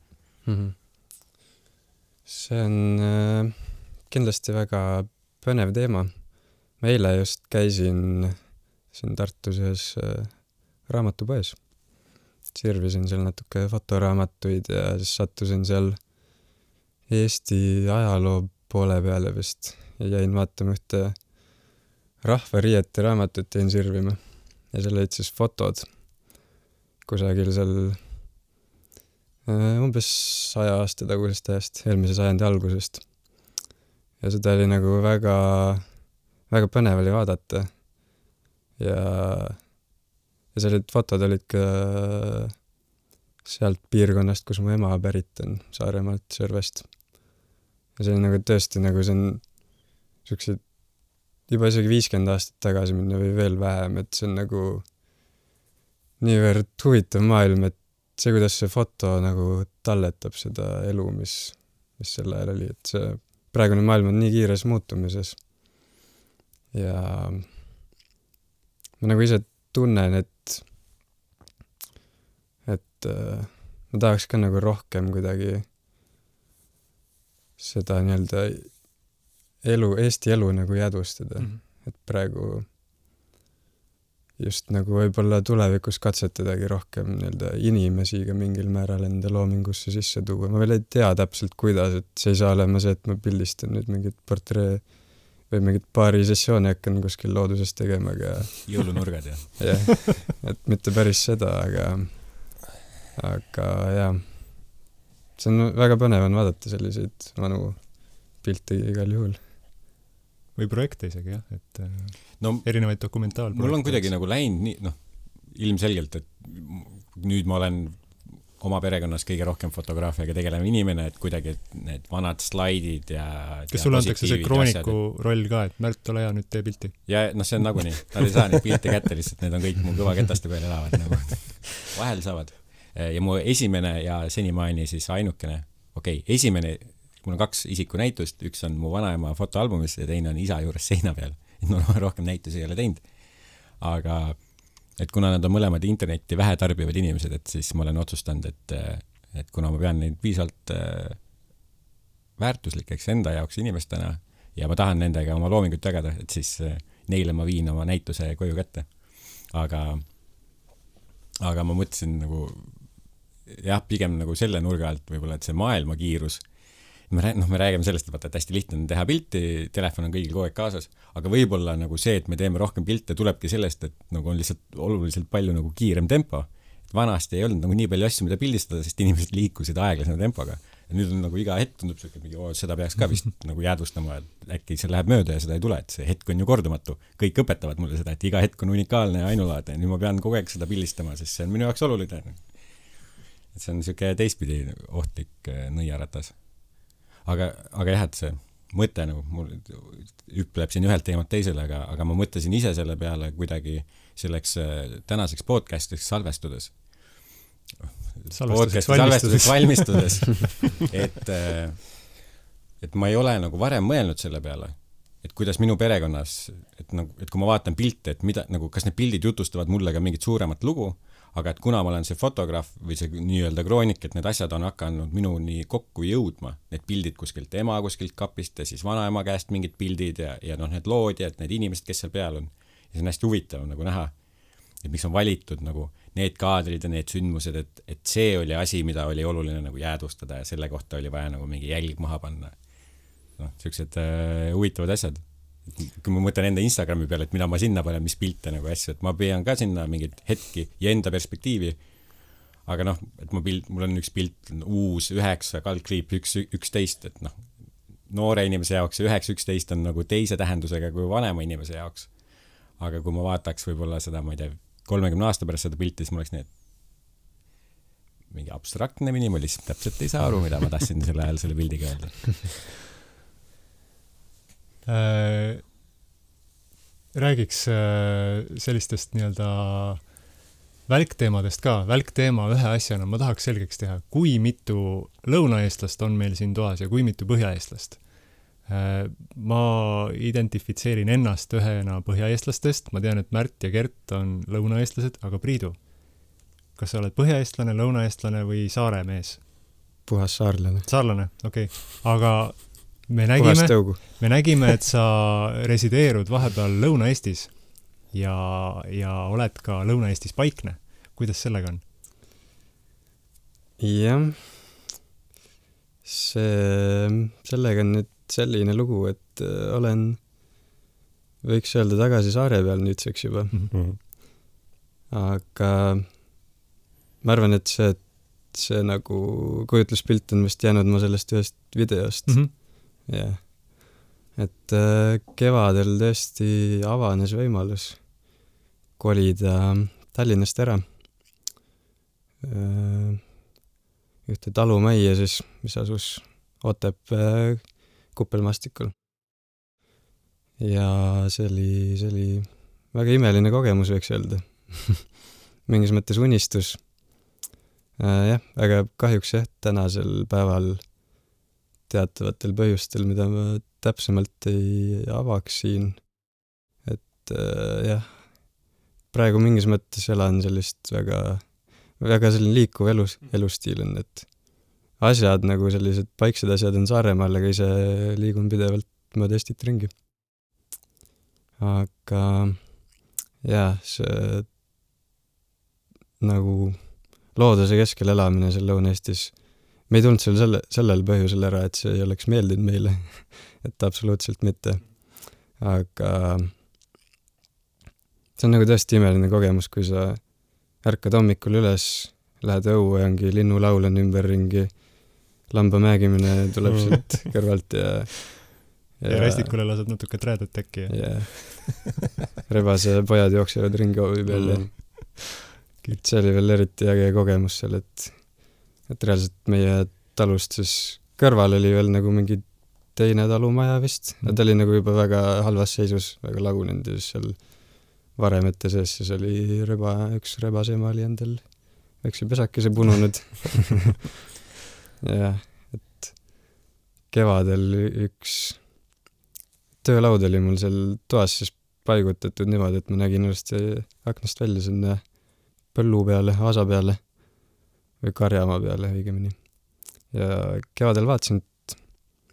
See on kindlasti väga põnev teema. Ma eile just käisin siin Tartus ühes raamatupoes. Sirvisin seal natuke fotoraamatuid ja siis sattusin seal Eesti ajaloo poole peale vist ja jäin vaatama ühte rahvariiete raamatut jäin sirvima ja seal olid siis fotod kusagil seal umbes 100 aasta tagusest ajast, eelmise sajandi algusest. Ja seda oli nagu väga, väga põnev oli vaadata ja sellised fotod olid ka sealt piirkonnast, kus mu ema pärit on, Saaremaalt, Sõrvest. Ja see on nagu tõesti nagu see on sellised juba isegi 50 aastat tagasi minna või veel vähem, et see on nagu niivõrd huvitav maailm, et see, kuidas see foto nagu talletab seda elu, mis sel ajal oli, et see praegune maailm on nii kiires muutumises. Ja ma nagu ise tunnen, et ma tahaks ka nagu rohkem kuidagi seda nii-öelda Eesti elu nagu jäädvustada. Et praegu just nagu võib-olla tulevikus katsetadagi rohkem nii-öelda inimesi ka mingil määral enda loomingusse sisse tuua. Ma veel ei tea täpselt kuidas, et see ei saa olema see, et ma pildistan nüüd mingit portree või mingit paari sessiooni hakkan kuskil looduses tegema, aga jõulunurgad ja. Jah, et mitte päris seda, aga jah, see on väga põnev on vaadata selliseid vanu pilte igal juhul. Või projekte isegi, jah, et erinevaid dokumentaalprojekte. Mul on kuidagi nagu läinud nii, ilmselgelt, et nüüd ma olen oma perekonnas kõige rohkem fotograafiaga tegelev inimene, et kuidagi need vanad slaidid ja kas sulle antakse see krooniku roll ka, et Märt, ole hea, nüüd tee pilti? Ja see on nagunii, nad ei saa neid pilte kätte lihtsalt, need on kõik mu kõvaketaste peal elavad nagu. Vahel saavad. Ja mu esimene ja senimaani siis ainukene, esimene, mul on 2 isikunäitust, üks on mu vanaema fotoalbumis ja teine on isa juures seina peal, et ma rohkem näitusi ei ole teinud. Aga et kuna nad on mõlemad internetti vähe tarbivad inimesed, et siis ma olen otsustanud, et kuna ma pean neid piisavalt väärtuslikeks enda jaoks inimestena ja ma tahan nendega oma loomingut jagada, et siis neile ma viin oma näituse koju kätte. Aga ma mõtlesin nagu, pigem nagu selle nurga alt võib-olla, et see maailma kiirus, me räägime sellest, et hästi lihtne on teha pilti, telefon on kõigil kogu aeg kaasas, aga võib-olla nagu see, et me teeme rohkem pilte, tulebki sellest, et nagu on lihtsalt oluliselt palju nagu kiirem tempo. Et vanasti ei olnud nagu nii palju asju, mida pildistada, sest inimesed liikusid aeglasema tempoga. Ja nüüd on nagu iga hetk tundub see, et seda peaks ka vist nagu jäädvustama, et äkki see läheb mööda ja seda ei tule, et see hetk on ju kordumatu. Kõik õpetavad mulle seda, et iga hetk on unikaalne ja ainulaadne ja nüüd ma pean kogu aeg seda pildistama, sest see on minu jaoks oluline. Et see on niisugune teistpidi ohtlik nõiaratas. Aga jah, et see mõte nagu mul hüpleb siin ühelt teemalt teisele, aga ma mõtlesin ise selle peale kuidagi selleks tänaseks podcast'iks salvestudes valmistudes et ma ei ole nagu varem mõelnud selle peale, et kuidas minu perekonnas, et kui ma vaatan pilte, et mida, nagu, kas need pildid jutustavad mulle ka mingit suuremat lugu, aga et kuna ma olen see fotograaf või see nii-öelda kroonik, et need asjad on hakanud minuni kokku jõudma, need pildid kuskilt ema kuskilt kapist ja siis vanaema käest mingid pildid ja need loodjad, need inimesed, kes seal peal on. Ja see on hästi huvitav nagu näha, et miks on valitud nagu need kaadrid ja need sündmused, et see oli asi, mida oli oluline nagu jäädvustada ja selle kohta oli vaja nagu mingi jälg maha panna. Sellised huvitavad asjad. Kui ma mõtlen enda Instagrami peale, et mida ma sinna panen, mis pilte nagu asju, et ma pean ka sinna mingid hetki ja enda perspektiivi, aga et mul on üks pilt uus 9/11, et noore inimese jaoks 9/11 on nagu teise tähendusega kui vanema inimese jaoks. Aga kui ma vaataks võib-olla seda, ma ei tea, 30 aasta pärast seda pilti, siis mul oleks need mingi abstraktne minimalism, täpselt ei saa aru, mida ma tahtsin selle ajal selle pildiga öelda. Räägiks sellistest nii-öelda välkteemadest ka. Välkteema ühe asjana ma tahaks selgeks teha, kui mitu lõunaeestlast on meil siin toas ja kui mitu põhjaeestlast. Ma identifitseerin ennast ühena põhjaeestlastest, ma tean, et Märt ja Gert on lõunaeestlased, aga Priidu, kas sa oled põhjaeestlane, lõunaeestlane või saare mees? Puhas saarlane. Saarlane, okei. Aga me nägime, et sa resideerud vahepeal Lõuna-Eestis ja oled ka Lõuna-Eestis paikne. Kuidas sellega on? Jah, sellega on nüüd selline lugu, et olen, võiks öelda, tagasi saare peal nüüdseks juba. Aga ma arvan, et see nagu kujutluspilt on vist jäänud ma sellest ühest videost. Jah. Et kevadel tõesti avanes võimalus kolida Tallinnast ära. Ühte talumajja siis, mis asus Otepää Kuppelmastikul. Ja see oli väga imeline kogemus, võiks öelda. Mingis mõttes unistus. Jah, aga kahjuks tänasel päeval teatavatel põhjustel, mida ma täpsemalt ei avaks siin. Et jah, praegu mingis mõttes elan sellist väga selline liikuv elustiil on, et asjad nagu sellised paiksed asjad on Saaremaal, aga ise liigun pidevalt mööda Eestit ringi. Aga jah, see nagu looduse keskel elamine seal Lõuna-Eestis, me ei tulnud sellel põhjusel ära, et see ei oleks meeldinud meile, et absoluutselt mitte. Aga see on nagu tõesti imeline kogemus, kui sa ärkad hommikul üles, lähed õue ja ongi linnulaul on ümberringi, lamba mägimine tuleb sealt kõrvalt ja Rästikule lased natuke träädet äkki. Ja rebase pojad jooksevad ringi hoovi peal ja see oli veel eriti äge kogemus seal, et et reaalselt meie talust siis kõrval oli veel nagu mingi teine talumaja vist, ja ta oli nagu juba väga halvas seisus, väga lagunenud ja siis seal varemete sees siis oli üks rebasema oli endal väikse pesakese pununud. jah, et kevadel üks töölaud oli mul seal toas siis paigutatud niimoodi, et ma nägin ilusti aknast välja sinna põllu peale, aasa peale või karjamaa peale õigemini. Ja kevadel vaatasin, et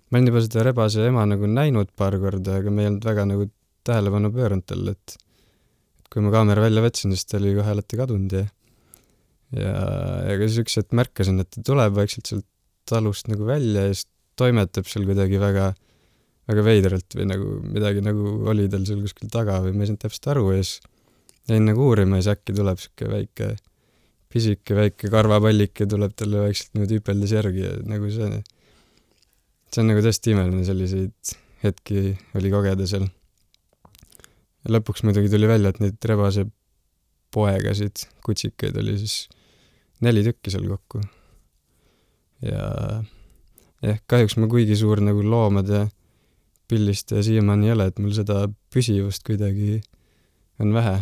ma olin juba seda rebase ema nagu näinud paar korda, aga me ei olnud väga nagu tähelepanu pööranud talle, et kui ma kaamera välja võtsin, siis ta oli kohe alati kadunud ja siis üks hetk märkasin, et ta tuleb vaikselt sealt talust nagu välja ja siis toimetab seal kuidagi väga, väga veidralt või nagu midagi nagu oli tal seal kuskil taga või ma ei saanud täpselt aru ja siis jäin nagu uurima ja siis äkki tuleb siuke väike karvapallike tuleb talle vaikselt niimoodi hüpeldes järgi ja nagu see on nagu tõesti imeline, selliseid hetki oli kogeda seal. Ja lõpuks muidugi tuli välja, et neid rebase poegasid, kutsikaid oli siis 4 tükki seal kokku. Ja kahjuks ma kuigi suur nagu loomade pillist ja siiamaani ei ole, et mul seda püsivust kuidagi on vähe.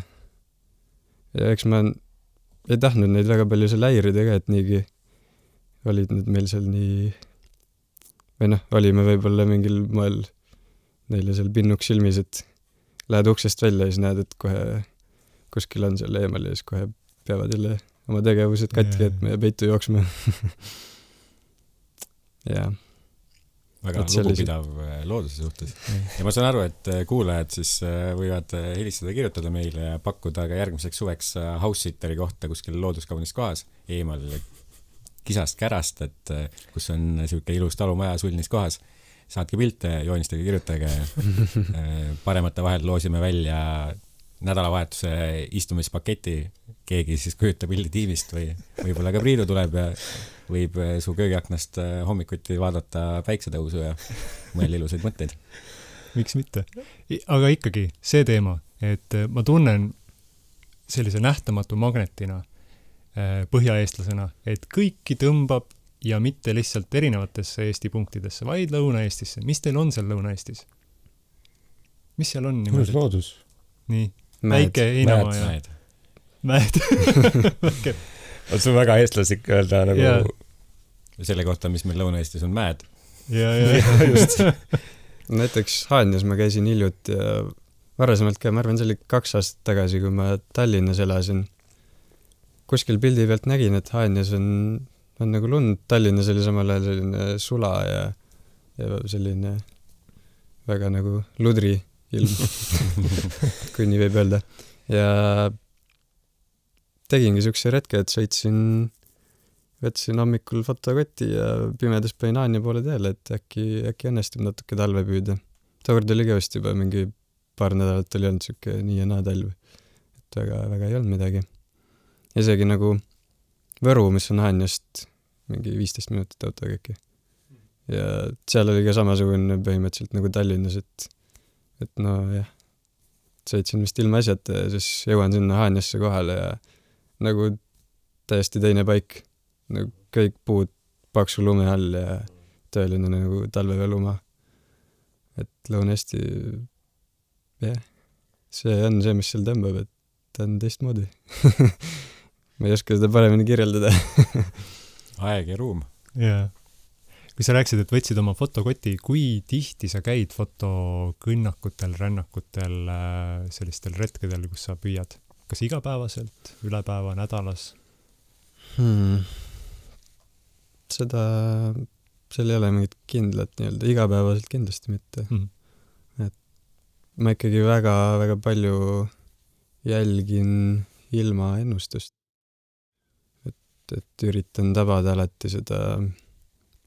Ja eks ma ei tahtnud neid väga palju seal häirida ka, et niigi olid need meil seal nii või olime võib-olla mingil moel neile seal pinnuks silmis, et lähed uksest välja ja siis näed, et kohe kuskil on seal eemal ja siis kohe peavad jälle oma tegevused katki jätma ja peitu jooksma. Jaa. Väga lugupidav looduse suhtes. Ja ma saan aru, et kuulajad siis võivad helistada, kirjutada meile ja pakkuda ka järgmiseks suveks house-sitteri kohta kuskil looduskaunis kohas eemal kisast kärast, et kus on siuke ilus talumaja sulnis kohas. Saatke pilte, joonistage, kirjutage. Paremate vahel loosime välja nädalavahetuse istumispaketi. Keegi siis kujutab pildi tiimist või võib-olla ka Priidu tuleb ja võib su köögiaknast hommikuti vaadata päiksetõusu ja mõelda ilusaid mõtteid. Miks mitte? Aga ikkagi see teema, et ma tunnen sellise nähtamatu magnetina põhjaeestlasena, et kõiki tõmbab ja mitte lihtsalt erinevatesse Eesti punktidesse, vaid Lõuna-Eestisse. Mis teil on seal Lõuna-Eestis? Mis seal on niimoodi? Loodus. Nii, väike heinamaa ja mäed. On sul väga eestlaslik öelda nagu yeah. Selle kohta, mis meil Lõuna-Eestis on mäed. Ja, just. Näiteks Haanjas ma käisin hiljuti ja varasemalt ka, ma arvan, see oli 2 aastat tagasi, kui ma Tallinnas elasin. Kuskil pildi pealt nägin, et Haanjas on nagu lund, Tallinnas oli samal ajal selline sula ja selline väga nagu ludri ilm, kui nii võib öelda. Ja tegingi siukse retke, et võtsin hommikul fotokoti ja pimedas panin Haanja poole teele, et äkki õnnestub natuke talve püüda. Tookord oli ka vist juba mingi paar nädalat oli olnud siuke nii ja naa talv, et väga ei olnud midagi. Isegi nagu Võru, mis on Haanjast mingi 15 minutit autoga äkki. Ja seal oli ka samasugune põhimõtteliselt nagu Tallinnas, et no jah, sõitsin vist ilma asjata ja siis jõuan sinna Haanjasse kohale ja nagu täiesti teine paik. Nagu kõik puud paksu lume all ja tõeline nagu talvevelumaa. Et Lõuna-Eesti, jah, see on see, mis seal tõmbab, et ta on teistmoodi. Ma ei oska seda paremini kirjeldada. Aeg ja ruum. Jaa. Kui sa rääksid, et võtsid oma fotokoti, kui tihti sa käid fotokõnnakutel, rännakutel, sellistel retkedel, kus sa püüad? Kas igapäevaselt, üle päeva, nädalas? Seal ei ole mingit kindlat nii-öelda, igapäevaselt kindlasti mitte. Et ma ikkagi väga palju jälgin ilma ennustust. Et üritan tabada alati seda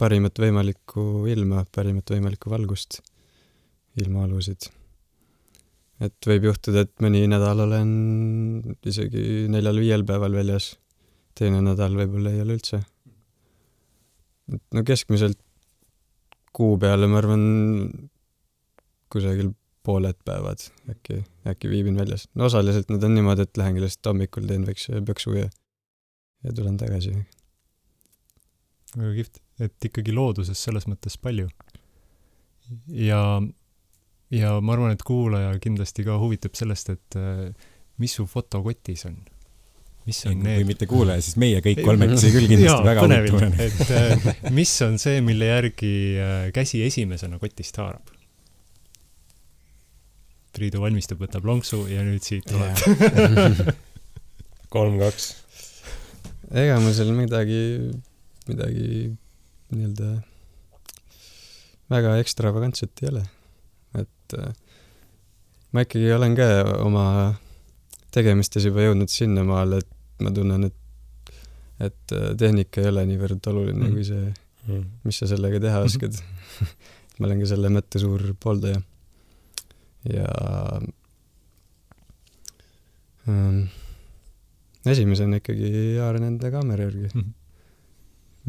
parimat võimalikku ilma, parimat võimalikku valgust, ilmaalusid. Et võib juhtuda, et mõni nädal olen isegi 4-5 päeval väljas, teine nädal võib-olla ei ole üldse. No keskmiselt kuu peale, ma arvan, kusagil pooled päevad äkki viibin väljas. No osaliselt nad on niimoodi, et lähengi lihtsalt hommikul teen väikse pöksu ja tulen tagasi. väga kihvt, et ikkagi looduses selles mõttes palju. Ja ma arvan, et kuulaja kindlasti ka huvitub sellest, et mis su fotokotis on. Mis on kui need? mitte kuulaja, siis meie kõik kolmekesi küll kindlasti väga huvituvad. Et mis on see, mille järgi käsi esimesena kotist haarab? Priidu valmistub, võtab lonksu ja nüüd siit tuleb. 3-2. Ega mul seal midagi nii-öelda väga ekstravagantset ei ole. Et ma ikkagi olen ka oma tegemistes juba jõudnud sinna maale, et ma tunnen, et tehnika ei ole niivõrd oluline kui see, mis sa sellega teha oskad. Ma olen ka selle mõtte suur pooldaja. Ja esimesena ikkagi haaran enda kaamera järgi,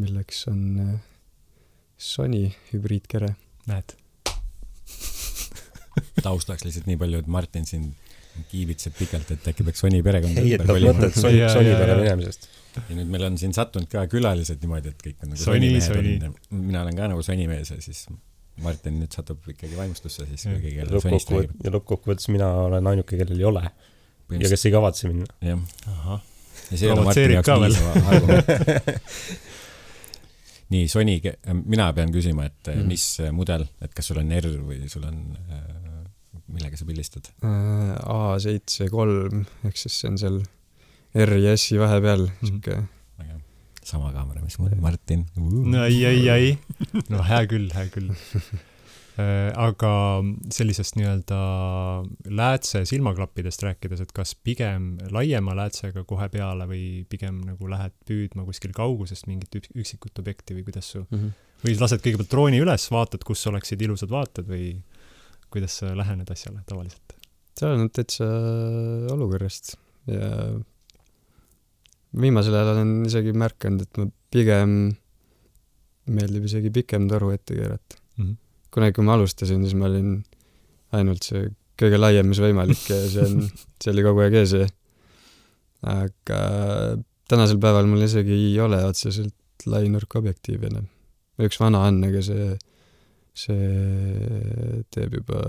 milleks on Sony hübriidkere. Näed. Taustaks lihtsalt nii palju, et Martin siin kiibitseb pikalt, et äkki peaks Sony perekond heietad mõtet Sony peale minemisest. Ja nüüd meil on siin sattunud ka külalised niimoodi, et kõik on nagu Sony. Mina olen ka nagu Sony mees ja siis Martin nüüd satub ikkagi vaimustusse siis kõigi kelle Sonist räägib. Ja lõppkokkuvõttes mina olen ainuke, kellel ei ole. Ja kes ei kavatse minna. Jah. Aha. Ja see on Martini jaoks niisama argument. Nii, Sony, mina pean küsima, et mis mudel, et kas sul on R või sul on, millega sa pildistad? A7 III, ehk siis see on seal R ja S-i vahepeal. Sama kaamera, mis mul Martin. No ei. No hää küll. Aga sellisest nii-öelda läätse silmaklappidest rääkides, et kas pigem laiema läätsega kohe peale või pigem nagu lähed püüdma kuskil kaugusest mingit üksikut objekti või kuidas su või lased kõigepealt drooni üles, vaatad, kus oleksid ilusad vaated või kuidas sa lähened asjale tavaliselt? See on täitsa olukorrast ja viimasel ajal olen isegi märkanud, et ma pigem meeldib isegi pikem toru ette keerata. Kunagi, kui ma alustasin, siis ma olin ainult see kõige laiem, mis võimalik ja see oli kogu aeg ees. Aga tänasel päeval mul isegi ei ole otseselt lainurkobjektiiv enam. Üks vana on, aga see teeb juba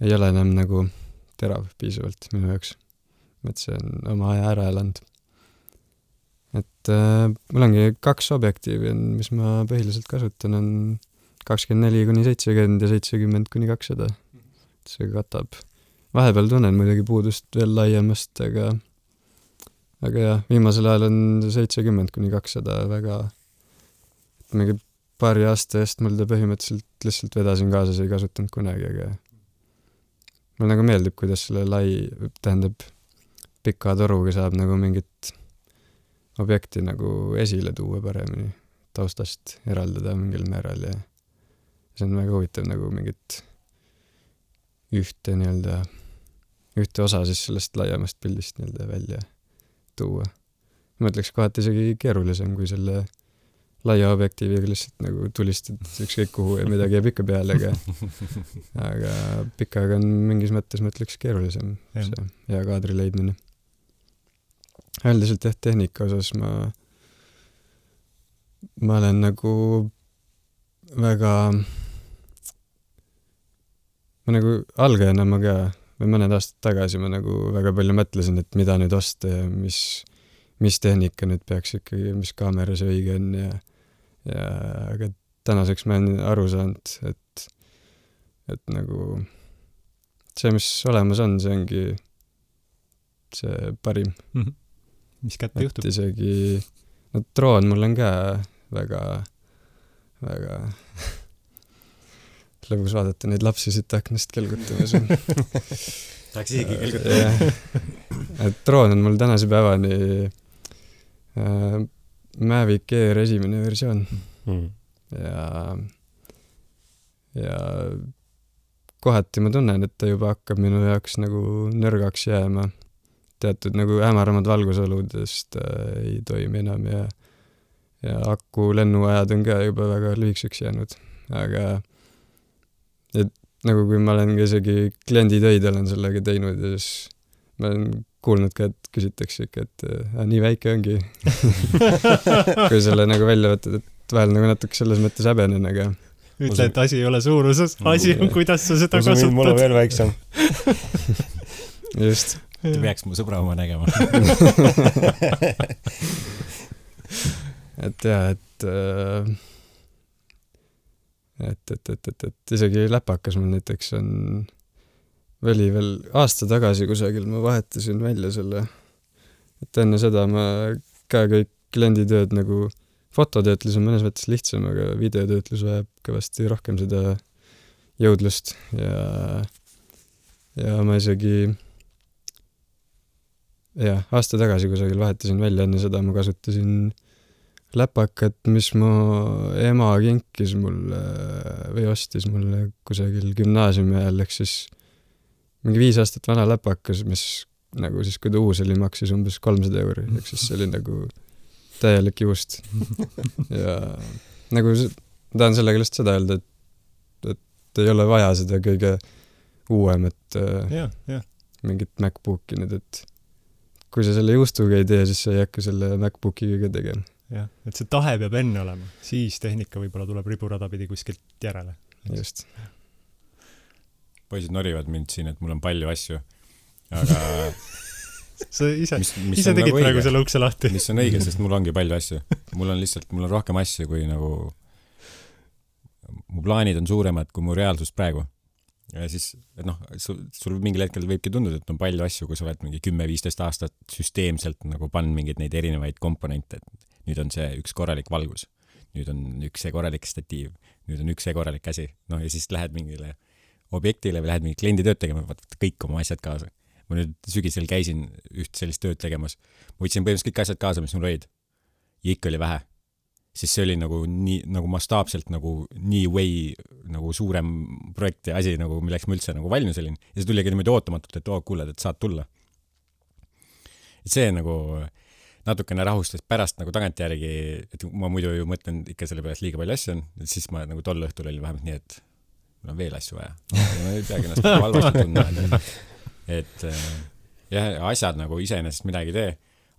ei ole enam nagu terav piisavalt minu jaoks. Et see on oma aja ära elanud. Et mul ongi 2 objektiivi, mis ma põhiliselt kasutan, on 24-70 ja 70-200. See katab. Vahepeal tunnen muidugi puudust veel laiemast, aga jah, viimasel ajal on 70-200 väga, et mingi paari aasta eest mul ta põhimõtteliselt lihtsalt vedasin kaasas, ei kasutanud kunagi, aga mul nagu meeldib, kuidas selle tähendab pika toruga saab nagu mingit objekti nagu esile tuua paremini, taustast eraldada mingil määral ja see on väga huvitav nagu mingit ühte osa siis sellest laiemast pildist välja tuua. Ma ütleks kohati isegi keerulisem kui selle laia objektiiviga lihtsalt nagu tulistad ükskõik kuhu ja midagi jääb ikka peale, aga pikaga on mingis mõttes, ma ütleks, keerulisem see hea kaadri leidmine. Üldiselt tehnika osas ma olen nagu väga ma nagu algajana ma ka või mõned aastad tagasi ma nagu väga palju mõtlesin, et mida nüüd osta ja mis tehnika nüüd peaks ikkagi, mis kaamera see õige on ja aga tänaseks ma olen aru saanud, et nagu see, mis olemas on, see ongi see parim. Mis kätte juhtub? Isegi, droon mul on ka väga lõbus vaadata neid lapsi siit aknast kelgutamas. Tahaks isegi kelgutada. Droon on mul tänase päevani Mavic Air esimene versioon. Ja kohati ma tunnen, et ta juba hakkab minu jaoks nagu nõrgaks jääma. Teatud nagu hämaramad valgusoludest ei toimi enam ja aku lennuajad on ka juba väga lühikseks jäänud. Aga et nagu kui ma olen isegi klienditöid olen sellega teinud ja siis ma olen kuulnud ka, et küsitakse ikka, et nii väike ongi. kui selle nagu välja võtad, et vahel nagu natuke selles mõttes häbenen, aga ütle, et asi ei ole suuruses, asi on, kuidas sa seda kasutad. Mul on veel väiksem. just. Te peaks mu sõbra oma nägema. et jah, et isegi läpakas mul näiteks oli veel aasta tagasi kusagil, ma vahetasin välja selle, et enne seda ma ka kõik klienditööd nagu fototöötlus on mõnes mõttes lihtsam, aga videotöötlus vajab kõvasti rohkem seda jõudlust ja ma isegi aasta tagasi kusagil vahetasin välja, enne seda ma kasutasin läpakat, mis mu ema kinkis mulle või ostis mulle kusagil gümnaasiumi ajal, ehk siis mingi 5 aastat vana läpakas, mis nagu siis, kui ta uus oli, maksis umbes 300 €, ehk siis see oli nagu täielik juust. ja nagu tahan sellega lihtsalt seda öelda, et ei ole vaja seda kõige uuemat mingit MacBooki nüüd, et kui sa selle juustuga ei tee, siis sa ei hakka selle MacBookiga ka tegema. Jah, et see tahe peab enne olema, siis tehnika võib-olla tuleb riburada pidi kuskilt järele. Just. Poisid norivad mind siin, et mul on palju asju, aga sa ise tegid praegu selle ukse lahti. Mis on õige, sest mul ongi palju asju. Mul on rohkem asju kui nagu mu plaanid on suuremad kui mu reaalsus praegu. Ja siis, et noh, sul mingil hetkel võibki tunduda, et on palju asju, kui sa oled mingi 10-15 aastat süsteemselt nagu pannud mingeid neid erinevaid komponente. Nüüd on see üks korralik valgus, nüüd on üks see korralik statiiv, nüüd on üks see korralik käsi. No ja siis lähed mingile objektile või lähed mingi kliendi tööd tegema, võtad kõik oma asjad kaasa. Ma nüüd sügisel käisin üht sellist tööd tegemas. Ma võtsin põhimõtteliselt kõik asjad kaasa, mis mul olid. Ja ikka oli vähe. Siis see oli nagu mastaapselt nagu nii way nagu suurem projekt ja asi, nagu milleks ma üldse nagu valmis olin. Ja see tuli niimoodi ootamatult, et kuuled, et saad tulla. Et see nagu natukene rahustas pärast nagu tagantjärgi, et ma muidu ju mõtlen ikka selle peale liiga palju asju on, et siis ma nagu tol õhtul oli vähemalt nii, et mul on veel asju vaja. Ma ei peagi ennast halvasti tundma. Et jah, asjad nagu iseenesest midagi tee.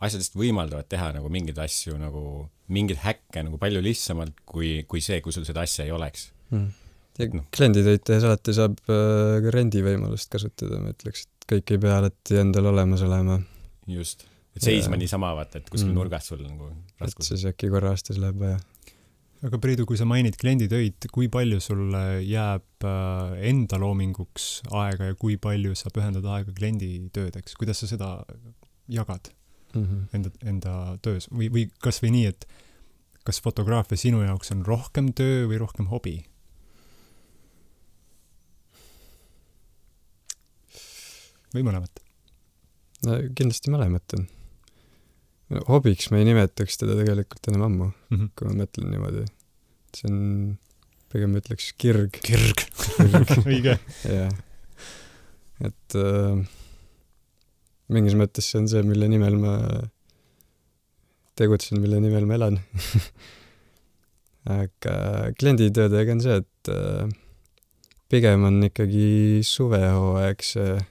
Asjadest võimaldavad teha nagu mingeid asju, nagu mingid häkke nagu palju lihtsamalt kui see, kui sul seda asja ei oleks. Ja klienditöid tehes alati saab ka rendivõimalust kasutada, ma ütleks, et kõik ei pea alati endal olemas olema. Just. Et seisma niisama vaata, et kuskil nurgast sul nagu raskus. Et siis äkki korra aastas läheb vaja. Aga Priidu, kui sa mainid klienditöid, kui palju sulle jääb enda loominguks aega ja kui palju sa pühendad aega klienditöödeks? Kuidas sa seda jagad enda töös? Või kas või nii, et kas fotograafia sinu jaoks on rohkem töö või rohkem hobi? Või mõlemat? No kindlasti mõlemat on. Hobiks ma ei nimetaks teda tegelikult enam ammu, kui ma mõtlen niimoodi. See on, pigem ütleks kirg. Kirg. Õige. Jah. Et mingis mõttes see on see, mille nimel ma tegutsen, mille nimel ma elan. Aga klienditöödega on see, et pigem on ikkagi suvehooaeg see,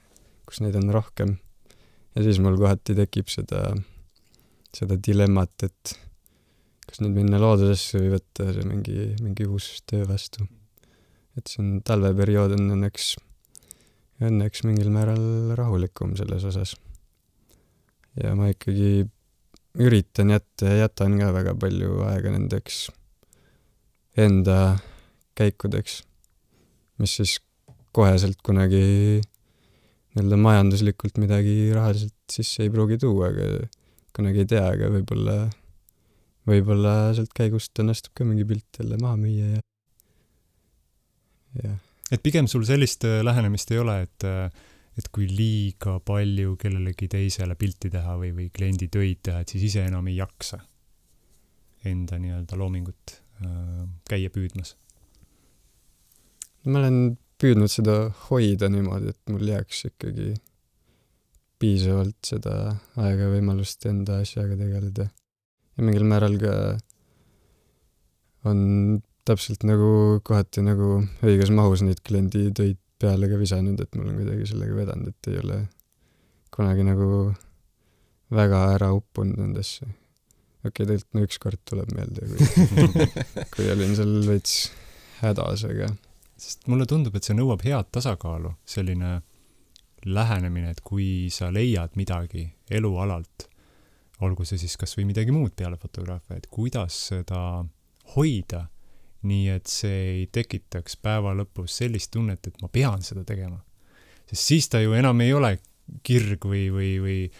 kus neid on rohkem. Ja siis mul kohati tekib seda dilemmat, et kas nüüd minna loodusesse või võtta see mingi uus töö vastu. Et see on talveperiood on õnneks mingil määral rahulikum selles osas. Ja ma ikkagi üritan jätta ja jätan ka väga palju aega nendeks enda käikudeks, mis siis koheselt kunagi majanduslikult midagi rahaliselt sisse ei pruugi tuua, aga kunagi ei tea, aga võib-olla sealt käigust õnnestub ka mingi pilt jälle maha müüa ja. Et pigem sul sellist lähenemist ei ole, et kui liiga palju kellelegi teisele pilti teha või kliendi töid teha, et siis ise enam ei jaksa enda nii-öelda loomingut käia püüdmas? Ma olen püüdnud seda hoida niimoodi, et mul jääks ikkagi piisavalt seda aega ja võimalust enda asjaga tegeleda. Ja mingil määral ka on täpselt nagu kohati nagu õiges mahus neid kliendi töid peale ka visanud, et mul on kuidagi sellega vedanud, et ei ole kunagi nagu väga ära uppunud nendesse. Tegelikult ükskord tuleb meelde, kui olin seal veits hädas, aga sest mulle tundub, et see nõuab head tasakaalu, selline lähenemine, et kui sa leiad midagi elualalt, olgu see siis kas või midagi muud peale fotograafia, et kuidas seda hoida, nii et see ei tekitaks päeva lõpus sellist tunnet, et ma pean seda tegema. Sest siis ta ju enam ei ole kirg või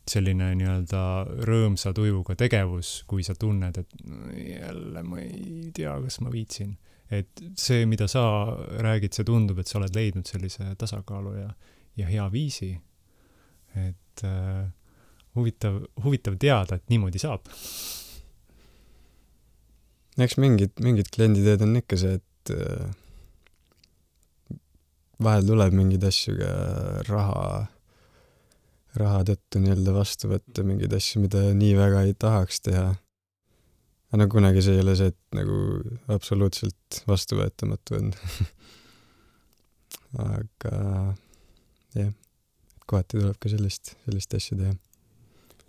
selline nii-öelda rõõmsa tujuga tegevus, kui sa tunned, et jälle ma ei tea, kas ma viitsin. Et see, mida sa räägid, see tundub, et sa oled leidnud sellise tasakaalu ja hea viisi. Et huvitav teada, et niimoodi saab. Eks mingid klienditeed on ikka see, et vahel tuleb mingid asju ka raha tõttu nii-öelda vastu võtta, mingid asju, mida nii väga ei tahaks teha. Aga kunagi see ei ole see, et nagu absoluutselt vastuvõetamatu on. Aga jah, kohati tuleb ka sellist asju teha.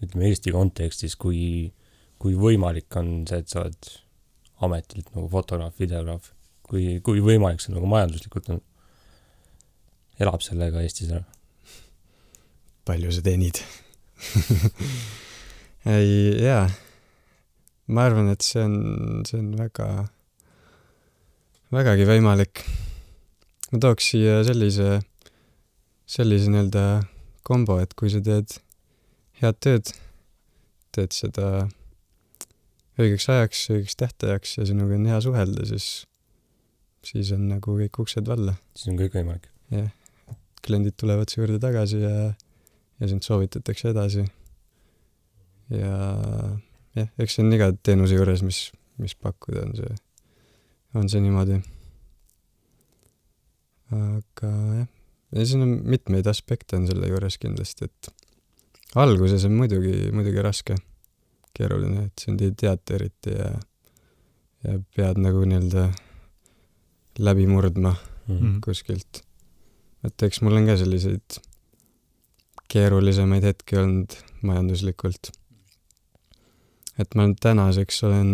Ütleme Eesti kontekstis, kui võimalik on see, et sa oled ametilt nagu fotograaf, videograaf, kui võimalik see nagu majanduslikult on, elab sellega Eestis ära? Palju sa teenid? Ei, jaa. Ma arvan, et see on vägagi võimalik. Ma tooks siia sellise nii-öelda kombo, et kui sa teed head tööd, teed seda õigeks ajaks, õigeks tähtajaks ja sinuga on hea suhelda, siis on nagu kõik uksed valla. Siis on kõik võimalik. Jah. Kliendid tulevad su juurde tagasi ja sind soovitatakse edasi. Ja eks see on iga teenuse juures, mis pakkuda on see niimoodi. Aga jah, ja siin on mitmeid aspekte on selle juures kindlasti, et alguses on muidugi raske, keeruline, et sind ei teata eriti ja pead nagu nii-öelda läbi murdma kuskilt. Et eks mul on ka selliseid keerulisemaid hetki olnud majanduslikult. Et ma tänaseks olen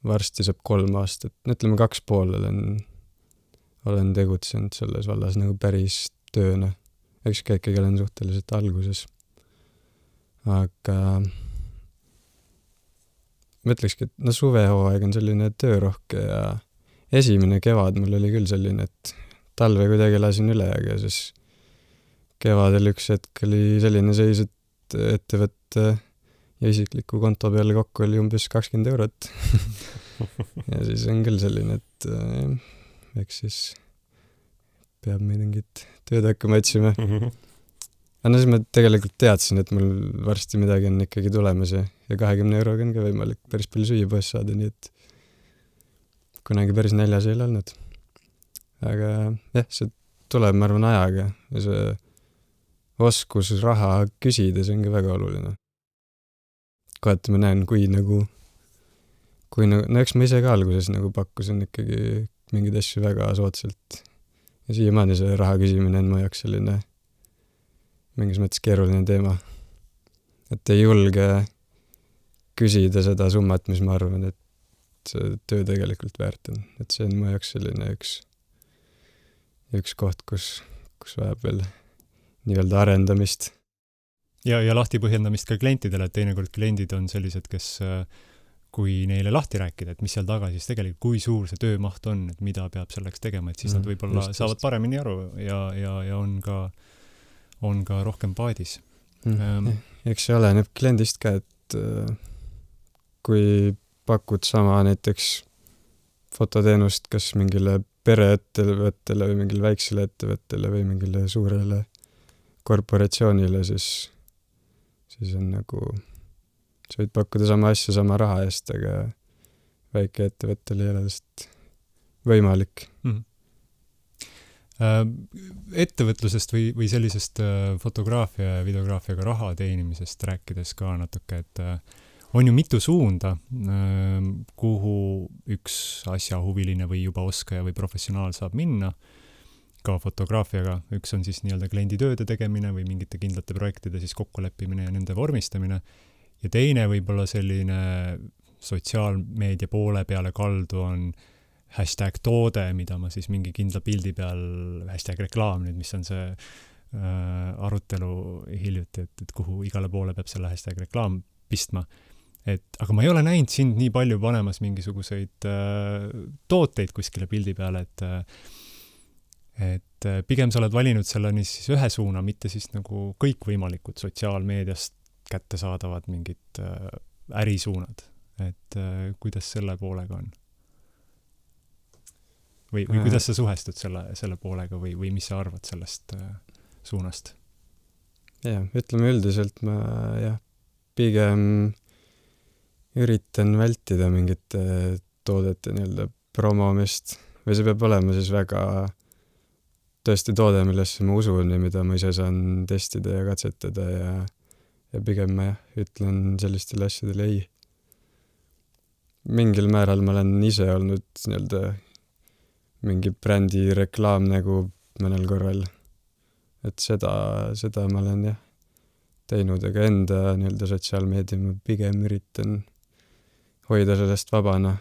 varsti saab 3 aastat, ütleme 2,5 olen tegutsenud selles vallas nagu päris tööna. Eks ka ikkagi olen suhteliselt alguses. Aga ma ütlekski, et suvehooaeg on selline töörohke ja esimene kevad mul oli küll selline, et talve kuidagi lasin üle, aga siis kevadel üks hetk oli selline seis, et ettevõtte ja isikliku konto peale kokku oli umbes 20 eurot. Ja siis on küll selline, et eks siis peab mingit tööd hakkama otsima. Aga siis ma tegelikult teadsin, et mul varsti midagi on ikkagi tulemas ja 20 euroga on ka võimalik päris palju süüa poes saada, nii et kunagi päris näljas ei ole olnud. Aga jah, see tuleb, ma arvan, ajaga ja see oskus raha küsida, see on ka väga oluline. Kohati ma näen, kui eks ma ise ka alguses nagu pakkusin ikkagi mingeid asju väga soodsalt. Ja siiamaani see raha küsimine on mu jaoks selline mingis mõttes keeruline teema. Et ei julge küsida seda summat, mis ma arvan, et see töö tegelikult väärt on. Et see on mu jaoks selline üks koht, kus vajab veel nii-öelda arendamist. Ja lahti põhjendamist ka klientidele, et teinekord kliendid on sellised, kes kui neile lahti rääkida, et mis seal taga siis tegelikult, kui suur see töömaht on, et mida peab selleks tegema, et siis nad võib-olla saavad paremini aru ja on ka rohkem paadis. Eks see oleneb kliendist ka, et kui pakud sama näiteks fototeenust kas mingile pereettevõttele või mingile väiksele ettevõttele või mingile suurele korporatsioonile, siis on nagu sa võid pakkuda sama asja sama raha eest, aga väike ettevõttel ei ole lihtsalt võimalik. Ettevõtlusest või sellisest fotograafia ja videograafiaga raha teenimisest rääkides ka natuke, et on ju mitu suunda, kuhu üks asjahuviline või juba oskaja või professionaal saab minna. ka fotograafiaga, üks on siis nii-öelda kliendi tööde tegemine või mingite kindlate projektide siis kokkuleppimine ja nende vormistamine, ja teine võib-olla selline sotsiaalmeedia poole peale kaldu on hashtag toode, mida ma siis mingi kindla pildi peal, hashtag reklaam nüüd, mis on see arutelu hiljuti, et kuhu igale poole peab selle hashtag reklaam pistma. Aga ma ei ole näinud sind nii palju panemas mingisuguseid tooteid kuskile pildi peale, et pigem sa oled valinud selle siis ühe suuna, mitte siis nagu kõikvõimalikud sotsiaalmeediast kättesaadavad mingid ärisuunad. Et kuidas selle poolega on? Või kuidas sa suhestud selle poolega või mis sa arvad sellest suunast? Ütleme üldiselt ma pigem üritan vältida mingite toodete nii-öelda promomist või see peab olema siis väga tõesti toode, millesse ma usun ja mida ma ise saan testida ja katsetada ja pigem ma ütlen sellistele asjadele ei. Mingil määral ma olen ise olnud nii-öelda mingi brändi reklaamnägu mõnel korral. Et seda ma olen teinud, aga enda nii-öelda sotsiaalmeedia ma pigem üritan hoida sellest vabana.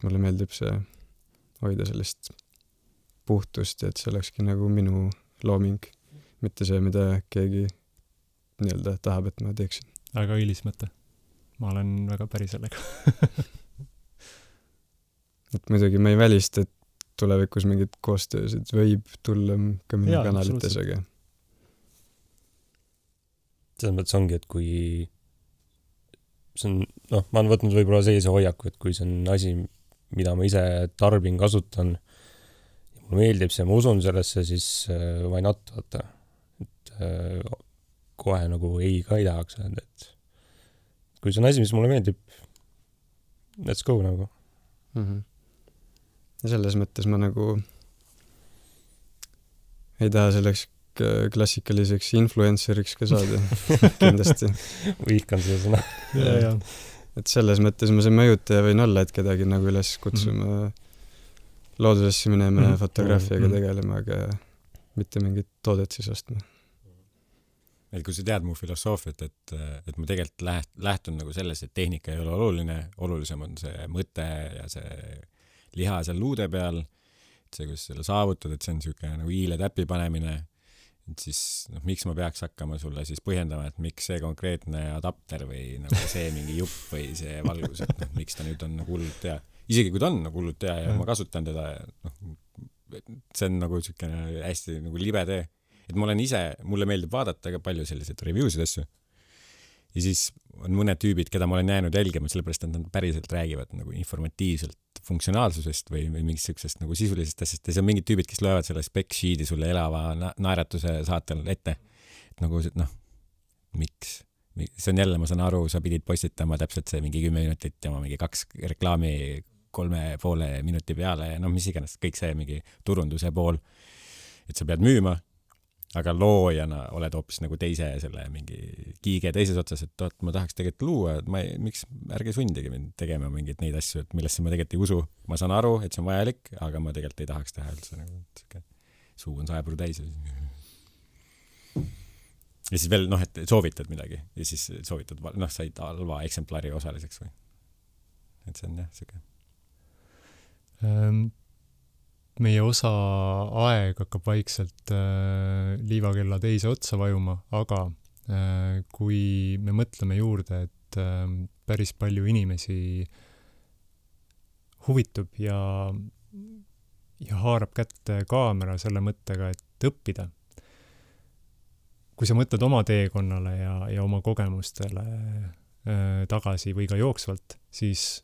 Mulle meeldib see hoida sellest puhtust, et see olekski nagu minu looming, mitte see, mida keegi nii-öelda tahab, et ma teeksin. Väga õilis mõte. Ma olen väga päri sellega. Et muidugi ma ei välista, et tulevikus mingid koostöösid võib tulla ka minu kanalites, aga selles mõttes ongi, et kui see on, ma olen võtnud võib-olla sellise hoiaku, et kui see on asi, mida ma ise tarbin, kasutan ja mulle meeldib see, ma usun sellesse, siis why not, vaata. Et kohe nagu ei ka ei tahaks öelda, et kui see on asi, mis mulle meeldib, let's go nagu. Ja selles mõttes ma nagu ei taha selleks klassikaliseks influenceriks ka saada, kindlasti. Vihkan seda sõna. Et selles mõttes ma see mõjutaja võin olla, et kedagi nagu üles kutsuma loodusesse minema ja fotograafiaga tegelema, aga mitte mingit toodet siis ostma. Et kui sa tead mu filosoofiat, et ma tegelikult lähtun nagu selles, et tehnika ei ole oluline, olulisem on see mõte ja see liha seal luude peal, et see, kus selle saavutad, et see on niisugune nagu hiile täpi panemine, et siis miks ma peaks hakkama sulle siis põhjendama, et miks see konkreetne adapter või nagu see mingi jupp või see valgus, et miks ta nüüd on nagu hullult hea. Isegi kui ta on nagu hullult hea ja ma kasutan teda, see on nagu niisugune hästi nagu libe tee. Et mulle meeldib vaadata ka palju selliseid reviewsid asju. Ja siis on mõned tüübid, keda ma olen jäänud jälgima, sellepärast, et nad päriselt räägivad nagu informatiivselt funktsionaalsusest või mingist sellisest nagu sisulisest asjast. Ja see on mingid tüübid, kes loevad selle spec sheet'i sulle elava naeratuse saatel ette. Et nagu, miks? See on jälle, ma saan aru, sa pidid postitama täpselt see mingi 10 minutit ja ma mingi 2 reklaami 3,5 minuti peale ja mis iganes, kõik see mingi turunduse pool. Et sa pead müüma, aga loojana oled hoopis nagu teise selle mingi kiige teises otsas, et ma tahaks tegelikult luua, et miks ärge sundige mind tegema mingeid neid asju, et millesse ma tegelikult ei usu. Ma saan aru, et see on vajalik, aga ma tegelikult ei tahaks teha üldse nagu suu on 100% täis. Ja siis veel, et soovitad midagi ja siis soovitad, said halva eksemplari osaliseks või. Et see on siuke. Meie osa aeg hakkab vaikselt liivakella teise otsa vajuma, aga kui me mõtleme juurde, et päris palju inimesi huvitub ja haarab kätte kaamera selle mõttega, et õppida. Kui sa mõtled oma teekonnale ja oma kogemustele tagasi või ka jooksvalt, siis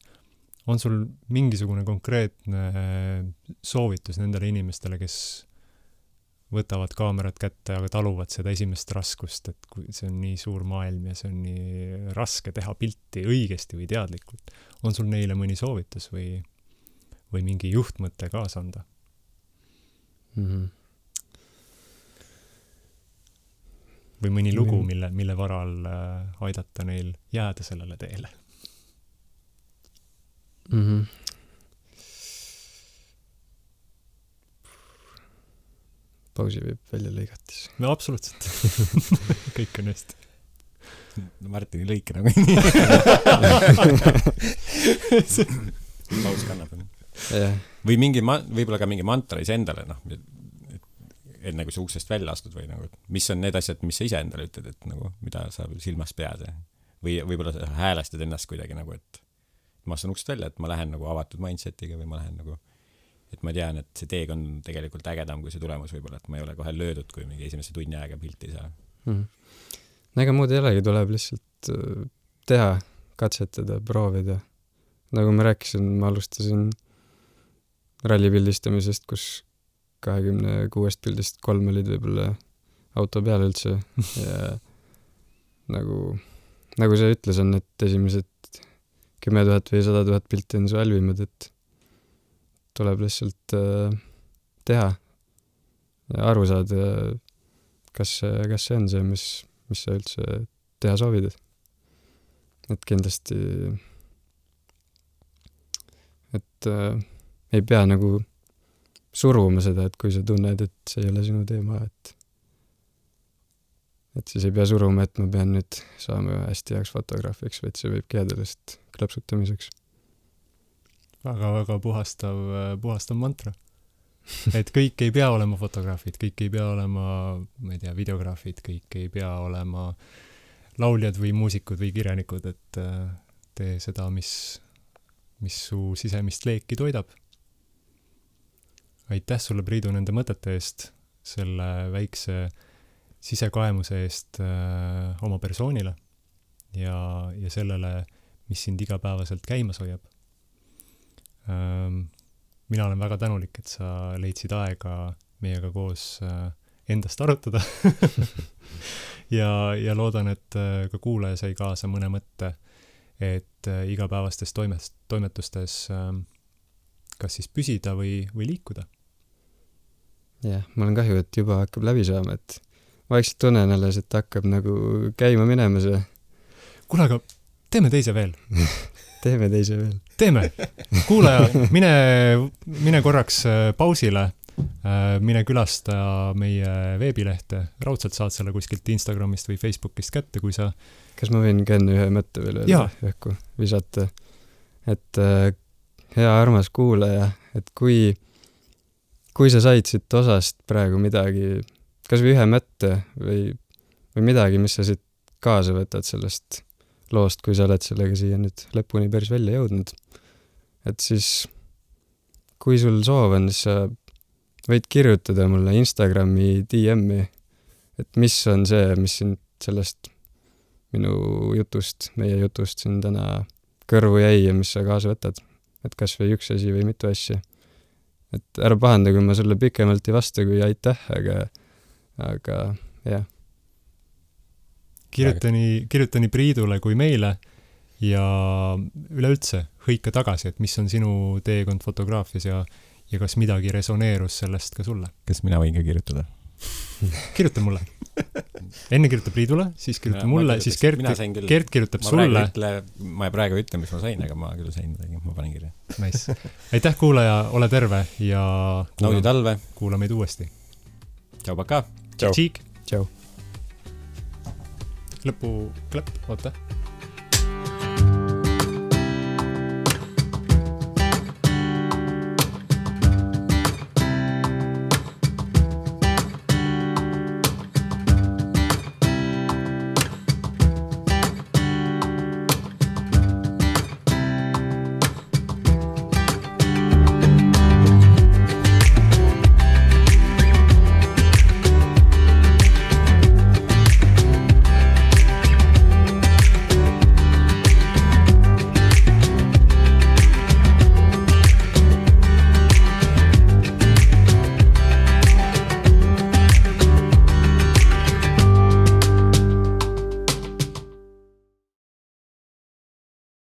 on sul mingisugune konkreetne soovitus nendele inimestele, kes võtavad kaamerat kätte, aga taluvad seda esimest raskust, et kui see on nii suur maailm ja see on nii raske teha pilti õigesti või teadlikult. On sul neile mõni soovitus või mingi juhtmõte kaasa anda? Või mõni lugu, mille varal aidata neil jääda sellele teele? pausi võib välja lõigata siis. no absoluutselt. kõik on hästi. no Martini lõike nagu paus kannab. jah. või võib-olla ka mingi mantra iseendale, noh, enne kui sa uksest välja astud või nagu, mis on need asjad, mis sa ise endale ütled, et nagu, mida sa silmas pead või võib-olla sa häälestad ennast kuidagi nagu, et ma astun uksest välja, et ma lähen nagu avatud mindsetiga või ma lähen nagu, et ma tean, et see teeg on tegelikult ägedam kui see tulemus võib-olla, et ma ei ole kohe löödud, kui mingi esimese tunni aega pilti ei saa. no ega muud ei olegi, tuleb lihtsalt teha, katsetada, proovida. nagu ma rääkisin, ma alustasin ralli pildistamisest, kus 26 pildist 3 olid võib-olla auto peal üldse ja nagu see ütles, on, et esimesed 10 000 või 100 000 pilti on su halvimad, et tuleb lihtsalt teha ja aru saada, kas see on see, mis sa üldse teha soovid. Et kindlasti ei pea nagu suruma seda, et kui sa tunned, et see ei ole sinu teema, et siis ei pea suruma, et ma pean nüüd saama hästi heaks fotograafiks, vaid see võibki jääda lihtsalt klõpsutamiseks. väga puhastav mantra. et kõik ei pea olema fotograafid, kõik ei pea olema, ma ei tea, videograafid, kõik ei pea olema lauljad või muusikud või kirjanikud, et tee seda, mis su sisemist leeki toidab. Aitäh sulle, Priidu, nende mõtete eest, selle väikse sisekaemuse eest oma persoonile ja sellele, mis sind igapäevaselt käimas hoiab. Mina olen väga tänulik, et sa leidsid aega meiega koos endast arutada ja loodan, et ka kuulaja sai kaasa mõne mõtte, et igapäevastes toimetustes kas siis püsida või liikuda. Jah, mul on kahju, et juba hakkab läbi saama, et vaikselt tunnen alles, et hakkab nagu käima minema see. Kuule, aga teeme teise veel. Teeme teise veel. Teeme. Kuulaja, mine korraks pausile, mine külasta meie veebilehte. Raudselt saad selle kuskilt Instagramist või Facebookist kätte, kui sa... Kas ma võin ka enne ühe mõtte veel õhku visata? Et hea armas kuulaja, et kui sa said siit osast praegu midagi, kas või ühe mõtte või midagi, mis sa siit kaasa võtad sellest loost, kui sa oled sellega siia nüüd lõpuni päris välja jõudnud. Et siis, kui sul soov on, siis sa võid kirjutada mulle Instagrami DM-i, et mis on see, mis sind sellest minu jutust, meie jutust siin täna kõrvu jäi ja mis sa kaasa võtad. Et kas või üks asi või mitu asja. Et ära pahanda, kui ma sulle pikemalt ei vasta, kui aitäh, aga jah. Kirjuta nii Priidule kui meile ja üleüldse hõika tagasi, et mis on sinu teekond fotograafias ja kas midagi resoneerus sellest ka sulle. Kas mina võin ka kirjutada? Kirjuta mulle. Enne kirjuta Priidule, siis kirjuta mulle, siis Gert kirjutab sulle. Ma praegu ütlen, mis ma sain, aga ma küll sain midagi, ma panen kirja. Nice. Aitäh, kuulaja, ole terve ja naudi talve. Kuula meid uuesti. Tšau, paka. Tšau. Tšau. Lõpu klepp, oota.